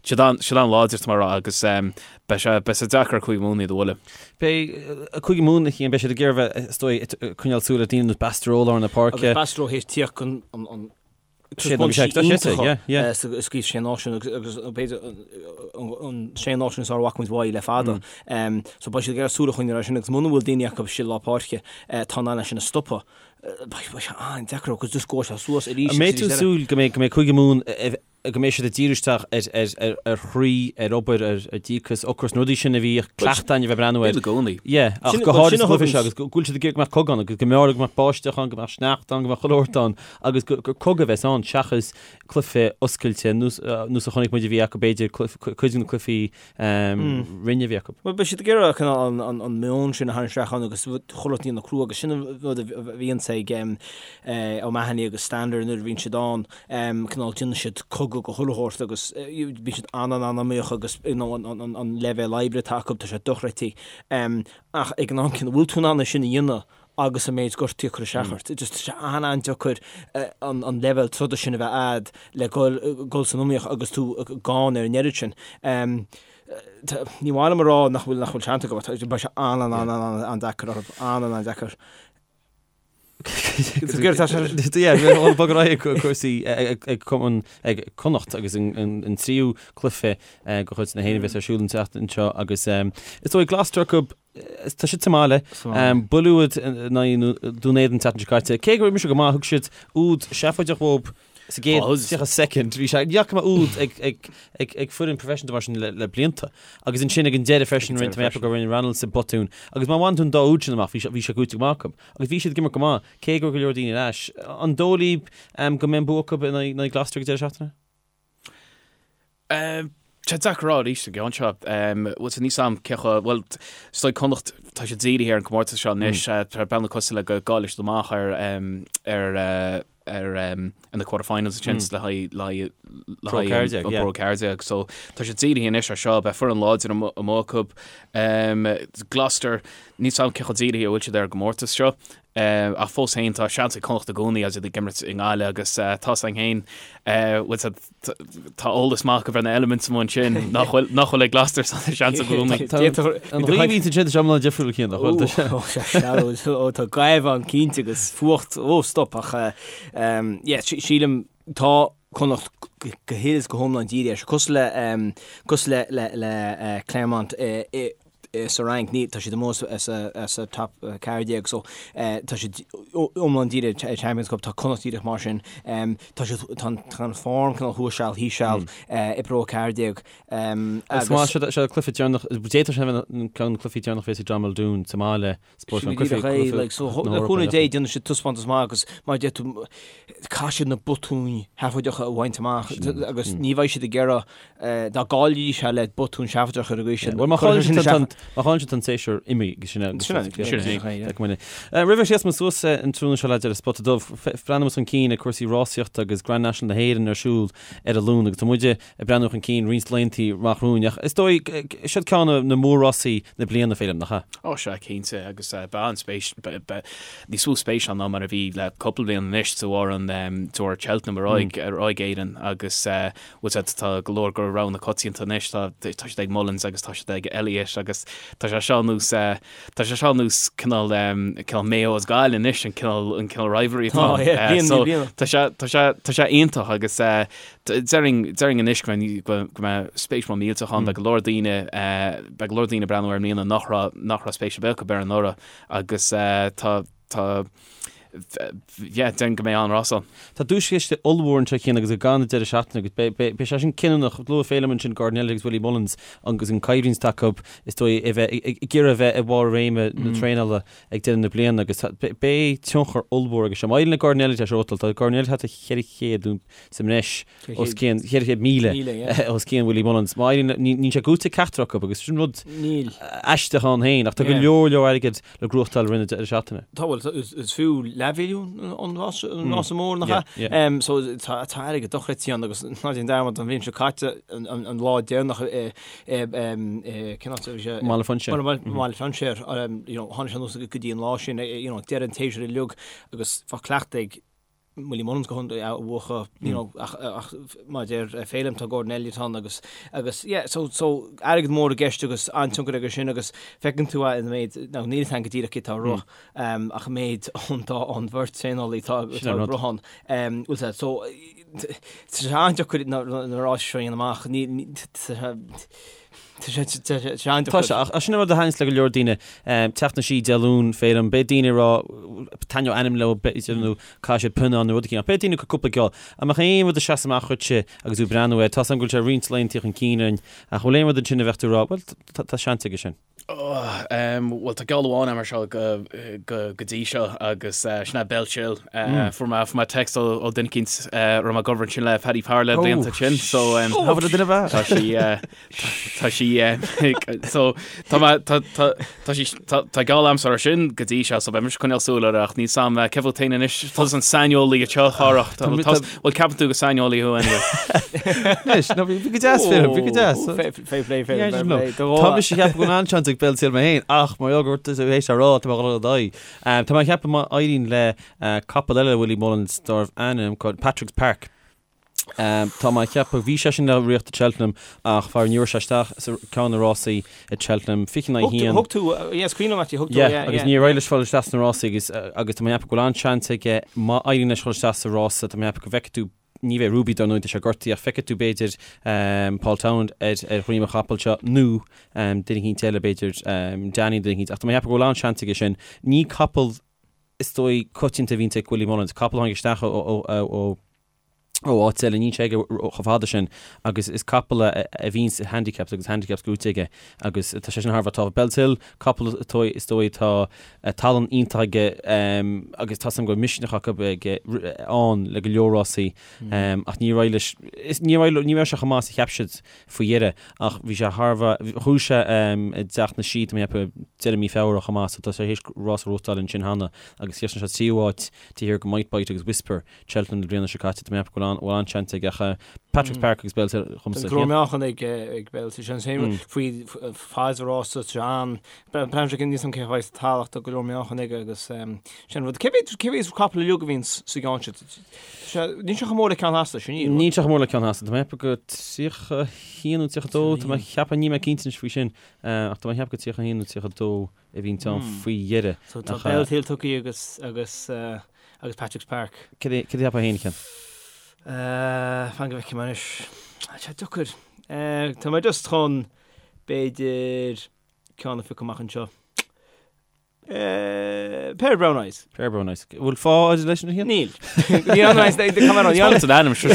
siad an siad an-láidir tá mé a rá agus beidh sé beidh sé deacair ar Cúige Mumhan iad a bhualadh. Beidh Cúige Mumhan a Chian, beidh siad ag iarraidh bheith is dóigh ag coinneáil súil ar daoine ar nós Bastareaud i lár na páirce. Agus Bastareaud théis tíocht chun an Taispeántais iontacha sa gCraobh Sé Náisiún agus b'fhéidir an Sé Náisiún is fearr a bhfaca muid uaidh le fada. So beidh siad ag iarraidh súil a choinneáil air sin agus muna bhfuil daoine acu istigh i lár páirce atá in ann é sin a stopadh, beidh sé an-deacair agus just gabhfaidh sé suas arís agus arís eile. An mbeidh tú ag súil go mbeidh Cúige Mumhan go mbeidh siad ag díriú isteach ar chroí, ar obair, ar dhíocas, ocras, na rudaí sin a bhíodh cleachtadh againn a bheith ag breathnú air. Bíonn i gcónaí. Yeah, ach go háirid sa chluiche seo agus go bhfuil siad ag iarraidh go mbeadh cogadh ann agus go mb'fhearr go mbeadh báisteach ann, go mbeadh sneachta ann, go mbeadh chuile shórt ann agus gur cogadh a bheas ann seachas cluiche oscailte nós a chonaic muid a bhí acu b'fhéidir cuid de na cluichí roinne a bhí acu. Bhuel beidh siad ag iarraidh cineál an meon sin a tharraingt isteach ann agus chuile shórt a dhéanamh crua agus sin an rud a bhíonns ag O'Mahony agus Stander nuair a bhíonn siad ann. cineál déanann siad cogadh go chuile shórt agus bíonn siad an-an-an-iomaíoch agus you know an leibhéal oibre atá acu tá sé dochreidte. Ach ag an am céanna bhfuil tú in ann é sin a dhéanamh agus an méid gortaí ag cur isteach ort. Just tá sé an-an-deacair an leibhéal troda sin a bheith a'd le dhul san iomaíocht agus tú gann ar an oiread sin. Ní maith liom a rá nach bhfuil nach bhfuil seans acu, beidh sé an-an-an-an-deacair orthu, an-an-an-deacair. Bog ar aghaidh ag cúrsaí ag cumann ag Connacht agus an tríú cluiche de chuid na hÉireann a bheas ar siúl an tseachtain seo agus is dóigh Gloucester acu tá siad sa mbaile buille úd in aghaidh Dún Éideann an tseachtain seo caite. Cé gur imir siad go maith thug siad úd seafóideach dhóibh Sa gcéad 30 soicind, bhí sé, ní fhaca mé úd ag foireann professional mar sin le blianta. Agus ansin ag an deireadh freisin, rinne mé gur rinne Reynolds botún. Agus má bhain tú an dá úd sin amach, bhí sé gnóite go maith acu. Agus bhí siad ag imirt go maith, cé go raibh go leor daoine ar ais. An dóigh libh go mbeidh an bua acu in aghaidh Gloucester ag an deireadh seachtaine? Tá sé deacair a rá arís an gceann seo. Bhuel, níl a fhios a'm cé chomh, bhuel, is dóigh Connacht, tá siad dírithe ar an gcomórtas seo anois, tá bealach cosúil le go gcaillfidh siad amach ar, ar, ar, ar na quarter-finals ansin le haghaidh, le haghaidh, le haghaidh an Pro 14. So tá siad dírithe anois ar seo, beidh foireann láidir amuigh acu. Gloucester, níl a fhios a'm cé chomh dírithe a bhfuil siad ar an gcomórtas seo. Ach fós féin, tá seans ag Connacht i gcónaí agus iad ag imirt i nGaillimh agus tá a fhios a'inn féin, bhfuil siad, tá eolas maith acu ar na elements amuigh ansin nach bhfuil, nach bhfuil ag Gloucester so tá seans i gcónaí. An ghaoth a bhíonns ansin, tá sé iomlán difriúil cinn, nach bhfuil? Ó, sé sealbh, ó, tá gaoth ann cinnte agus fuacht, ó, stop, ach yeah, sílim, tá Connacht go huile is go hiomlán dírithe air seo, cosúil le, cosúil le, le, le Clermont i, sa Fhrainc, ní, tá siad amuigh as an top 14 so tá siad iomlán dírithe ar Champions Cup, tá Connacht díreach mar sin, tá siad, tá an form cineál thuas seal, thíos seal i bPro 14 agus. Agus seo seo cluiche deireanach, d'fhéadfadh sé a bheith ceann de na cluichí deireanach a bheas ag John Muldoon sa mbaile, Sin go díreach é, like, so le cúnamh Dé déanfaidh siad taispeántas maith agus mar a deir tú, caithfidh siad na botúin sheafóideacha a bhaint amach agus ní bheidh siad ag iarraidh dá gcaillfidís é le botún seafóideach ar an gcaoi sin. Bhuel, má chailleann siad má chailleann siad an séasúr imithe agus sin é. Sin é, sin é. Roimh a sheas muid suas an tráthnóna seo le deireadh Spota Dubh, breathnóidh muid chun cinn ag cúrsaí rásaíochta agus Grand National na hÉireann ar siúl ar an Luan agus tá muide ag breathnú chun cinn roinnt laethanta amach romhainn ach is dóigh, siod ceann de na mór-rásaí na bliana, Féilim, nach ea? Ó sea, cinnte, agus beidh an-spéis, níos mó spéis ann ná mar a bhí le cúpla bliain anois de bharr an, de bharr Cheltenham ar aghaidh, ar aghaidh Éirinn agus bhfuil sé, tá go leor de roghanna coitianta anois, tá, tá siad ag Mullins agus tá siad ag Elliott agus tá sé seo nós, tá sé seo nós cineál, cineál Mayo is Gaillimh anois, an cineál, an cineál rivalry atá ann. So tá sé, tá sé, tá sé iontach agus Déarfainn, déarfainn anois go mbeidh, go mbeidh spéis mór millteach ann, beidh go leor daoine, beidh go leor daoine ag breathnú air i mbliana nach raibh, nach raibh spéis ar bith acu air anuraidh agus tá, tá, yeah, déarfainn go mbeidh an-rás ann. Tá duaischiste ollmhór anseo Cian agus ag an deireadh seachtaine agus beidh, beidh, beidh sé sin cinniúnach. Luaigh Féilim ansin Gordon Elliott agus Willie Mullins agus an coimhlint atá acu is dóigh a bheith, ag iarraidh a bheith i bharr réime na traenála ag deireadh na bliana agus beidh tionchar ollmhór aige seo. Má éiríonn le Gordon Elliott é seo a bhuachtáil, tá Gordon Elliott thart ar 400 sa mbreis os cionn, 400,000 os cionn Willie Mullins. Má éiríonn, níl sé gnóite ag ceachtar acu agus sin rud aisteach ann féin ach tá go leor leor airgid le gnóthachtáil i rith na deireadh seachtaine. Tá, bhuel, is fiú leathmhilliún an rása mór nach ea? So tá airgead dochreidte ann agus ná déan dearmad an bhliain seo caite an lá deireanach i cén áit a bhí sé? Mbaile Phúinséir. Mbaile Phúinséir, you know, tháinig sé anuas go dtí an lá sin, you know, deireadh an tséasúir uilig agus bheadh cleachtadh ag Willie Mullins go hiontaoibh a bhuachan, you know, ach, ach mar a deir Féilim tá Gordon Elliott ann agus, agus yeah, so, so airgead mór i gceist agus an-tionchar aige sin agus feiceann tú é an méid, now níl a fhios agam go díreach cé tá ag rith, um, ach an méid ón dá, ón bheirt traenálaí atá, atá ag rith ann, um, bhfuil sé, so, tá sé an-deacair na, na ráis seo a dhéanamh amach, ní, ní, tá sé, Tá sé an-deacair. Tá sé, ach sin an rud a thaitníos le go leor daoine, teacht na sí Dé Luain, Féilim, beidh daoine ag rá, taitneoidh ainm leo, b'fhéidir, nó caithfidh siad pionnán nó rud eicínt, ach beidh daoine ag cur cúpla geall. An mbeadh aon rud ag seasamh amach dhuitse agus tú ag breathnú air? Tá 's agam go bhfuil sé roinnt laethanta chun cinn orainn, ach an bhfuil aon rud ansin a bheadh tú ag rá, bhuel, tá seans aige sin? Bhuel, tá geall amháin agam air seo go dtí seo agus sin é Bellshill. Fuair mé fuair mé text ó duine eicínt a raibh mé ag obair ansin le Paddy Power le blianta ansin so tá sí tá sí so tá mé tá tá tá sí tá tá geall agamsa air sin go dtí seo so beidh mise ag coinneáil súil air ach níl 's agam cé fút féin anois tusa an saineolaí anseo a Chárthach bhuel ceapann tú gur saineolaí thú anyway. Anois, no, bhí go deas Féilim, bhí go deas. Fair play, fair play, fair play. Tá mise ag ceapadh go bhfuil an-seans ag Bellshill mé féin, ach mar gheall gur tú théis a rá, tá mé ag dul ar aghaidh. Tá mé ag ceapadh má éiríonn le capall eile Willie Mullins darbh ainm Patrick's Park. Tá mé ag ceapadh, bhí sé sin le riocht i Cheltenham ach faraor ní raibh sé isteach sa ceann de na rásaí i Cheltenham, 20 in aghaidh 1. Thug tú, yeah, is cuimhin liom actually, thug tú, yeah, yeah. Agus níor éirigh leis fáil isteach sna rásaí agus agus tá mé ag ceapadh go bhfuil an-seans aige má éiríonn leis fáil isteach sa rása, tá mé ag ceapadh go bhfeicfidh tú, ní bheidh Ruby dar ndóigh, tá sé gortaithe ach feicfidh tú b'fhéidir Paul Townend ar ar dhroim an chapaill seo nó duine eicínt eile b'fhéidir Danny duine eicínt ach tá mé ag ceapadh go bhfuil an-seans aige sin. Ní capall is dóigh coitianta a bhíonns ag Willie Mullins, capall a tháinig isteach ó ó ó ó áit eile, níl sé aige chomh fada sin agus is capall a bhíonns i handicaps agus handicaps gnóite aige agus tá sé sin thar a bheith tábhachtach. Bellshill, capall is dóigh atá tallann iontach aige agus tá 's agam go bhfuil misneach acu aige ann le go leor rásaí ach níor éirigh leis, ní raibh sé chomh maith is a cheap siad faoi dheireadh ach bhí sé thar a bheith, ghnóthaigh sé i dTeach na Sí, tá mé ag ceapadh deireadh mí Feabhra chomh maith so tá sé théis rás a ghnóthachtáil ansin cheana agus chríochnaigh sé tríú háit taobh thiar de Might Bite agus Whisper. Cheltenham na bliana seo caite, tá mé ag ceapadh go bhfuil bhfuil an-seans aige ach Patrick's Park agus Bellshill dhomsa. Go leor meáchan ag ag Bellshill sin sin faoi fad rása an Breathnaím sé níos an cé chaoi sa talamh tá go leor meáchan aige agus sin rud. Cé mhéad cé mhéad capall uilig a bhíonn sa gceann sin? Níl sé chomh mór le ceann Theasa sin níl. Níl sé chomh mór le ceann Theasa, tá mé ag ceapadh go 31 nó 32, tá mé ag ceapadh, níl mé cinnte anois faoi sin, ach tá mé ag ceapadh go 31 nó 32 a bhíonn ann faoi dheireadh. So tá Bellshill tugtha agus agus agus Patrick's Park. Cad é cad a cheapfá féin, a Chian? Fan go bhfeicfidh mé anois. Tá sé deacair. Tá mé just chun b'fhéidir ceann a phiocadh amach anseo. Pair of Brown Eyes. Pair of Brown Eyes. Bhfuil fáth agat leis sin a Chian? Níl. Ní an mé Tá an ainm seo.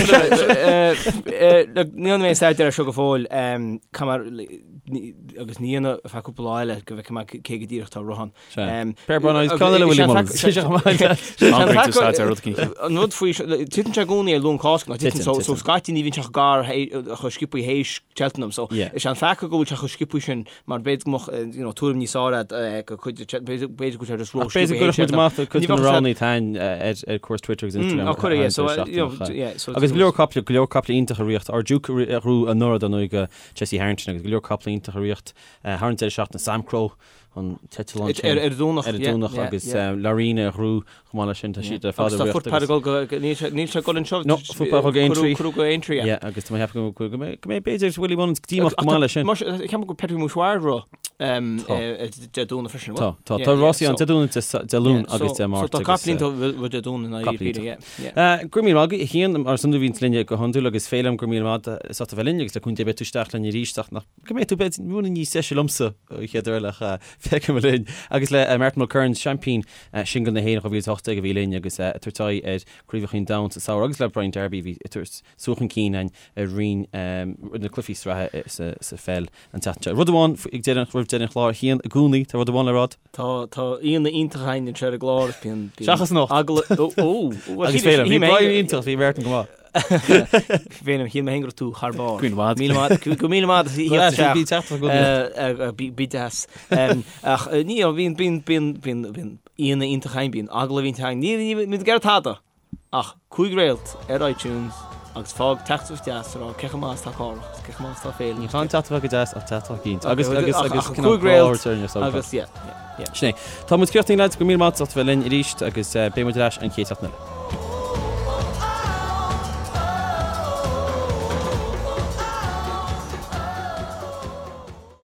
Ní an mé staidéar seo go fóill agus ní dhéanamh ar feadh cúpla lá eile go bhfeicfidh mé cé go díreach atá ag rith ann. Pair of Brown Eyes, ceann eile Willie Mullins. An rud faoi, titeann sé i gcónaí ar Luan Cásca, nó titeann, so so scaití ní bhíonn sé chomh gar chomh sciobthaí théis Cheltenham, so is é an peaca go bhfuil sé chomh sciobthaí sin mar b'fhéidir go mbeadh you know tuairim níos fearr agat go cuid b'fhéidir go bhfuil sé just ró B'fhéidir go gcuirfeadh muid amach cuid de na roghanna atá againn ar cúrsaí Twitter agus Instagram. Á cuireadh, yeah, so you know yeah, so Agus go leor caiple, go leor caiple iontach ag rith, Our Duke a ghnóthaigh anuraidh dar ndóigh do Jesse Harrington agus go leor caiple iontach ag rith thar an deireadh seachtaine, Samcro an teideal ansin. Ar an Domhnach, Ar an Domhnach agus Laurina a ghnóthaigh chomh maith leis sin, tá siad ar fad ag rith. Agus tá Footpad ag dul go, níl sé ag dul anseo. No, Footpad ag dul go Aintree. Cuireadh go Aintree, yeah. Yeah, agus tá mé ag ceapadh go mbeidh b'fhéidir Willie Mullins díomách go maith leis sin. Ceapaim go Petite Mouchoir ag rith Dé Domhnaigh freisin, Tá, tá, tá rásaí ann Dé Domhnaigh, Dé Luain agus Dé Máirt. So tá caiple iontach ag rith Dé Domhnaigh in aghaidh Peter, yeah. Go raibh míle maith agat, a Chian, mar is iondúil bhíonn tú linn go hiondúil agus Féilim, go raibh míle maith agat as ucht a bheith linn agus le cúnamh Dé beidh tú isteach linn arís ach nach go mbeidh tú b'fhéidir ruainne níos deise liomsa an chéad uair eile ach feicfidh muid linn. Agus le Martin Mulkerrins, seaimpín singil na hÉireann 2018 a bhí linn agus ag tabhairt aghaidh ar Chraobhacha an Domhain sa samhradh agus le Brian Darby a bhí ag tabhairt sú chun cinn againn ar roinn na cluichí sraithe sa pheil an tseachtain seo. Rud amháin ag deireadh roimh deireadh an chláir, a Chian, i gcónaí tá rud amháin le rá. Tá tá aíonna iontach againn anseo ar an gclár. Bíonn Seachas anocht. Agallamh ó ó Agus Féilim, bhí Brian iontach, bhí Martin go maith. Féilim, shíl mé féin go raibh tú thar barr. Go maith. Míle maith, go míle maith as theacht isteach. Bí teacht go Bí bí deas. Ach ní bíonn bíonn bíonn bíonn bíonn aíonna iontach againn, bíonn agallamh iontach againn. Ní ní ní ag iarraidh tada. Ach 5 réalt ar iTunes agus fág teachtaireacht deas a rá cé chomh maith is atá Cárthach agus cé chomh maith is atá Féilim. Ní chan teachtaireacht go deas ach teachtaireacht cinnte. Agus agus agus cineál grá a thabhairt orainn ar SoundCloud. Agus yeah, yeah, yeah. Sin é. Tá muid críochnaithe lads, go raibh míle maith agat as ucht a bheith linn arís agus beidh muid ar ais an chéad seachtain eile.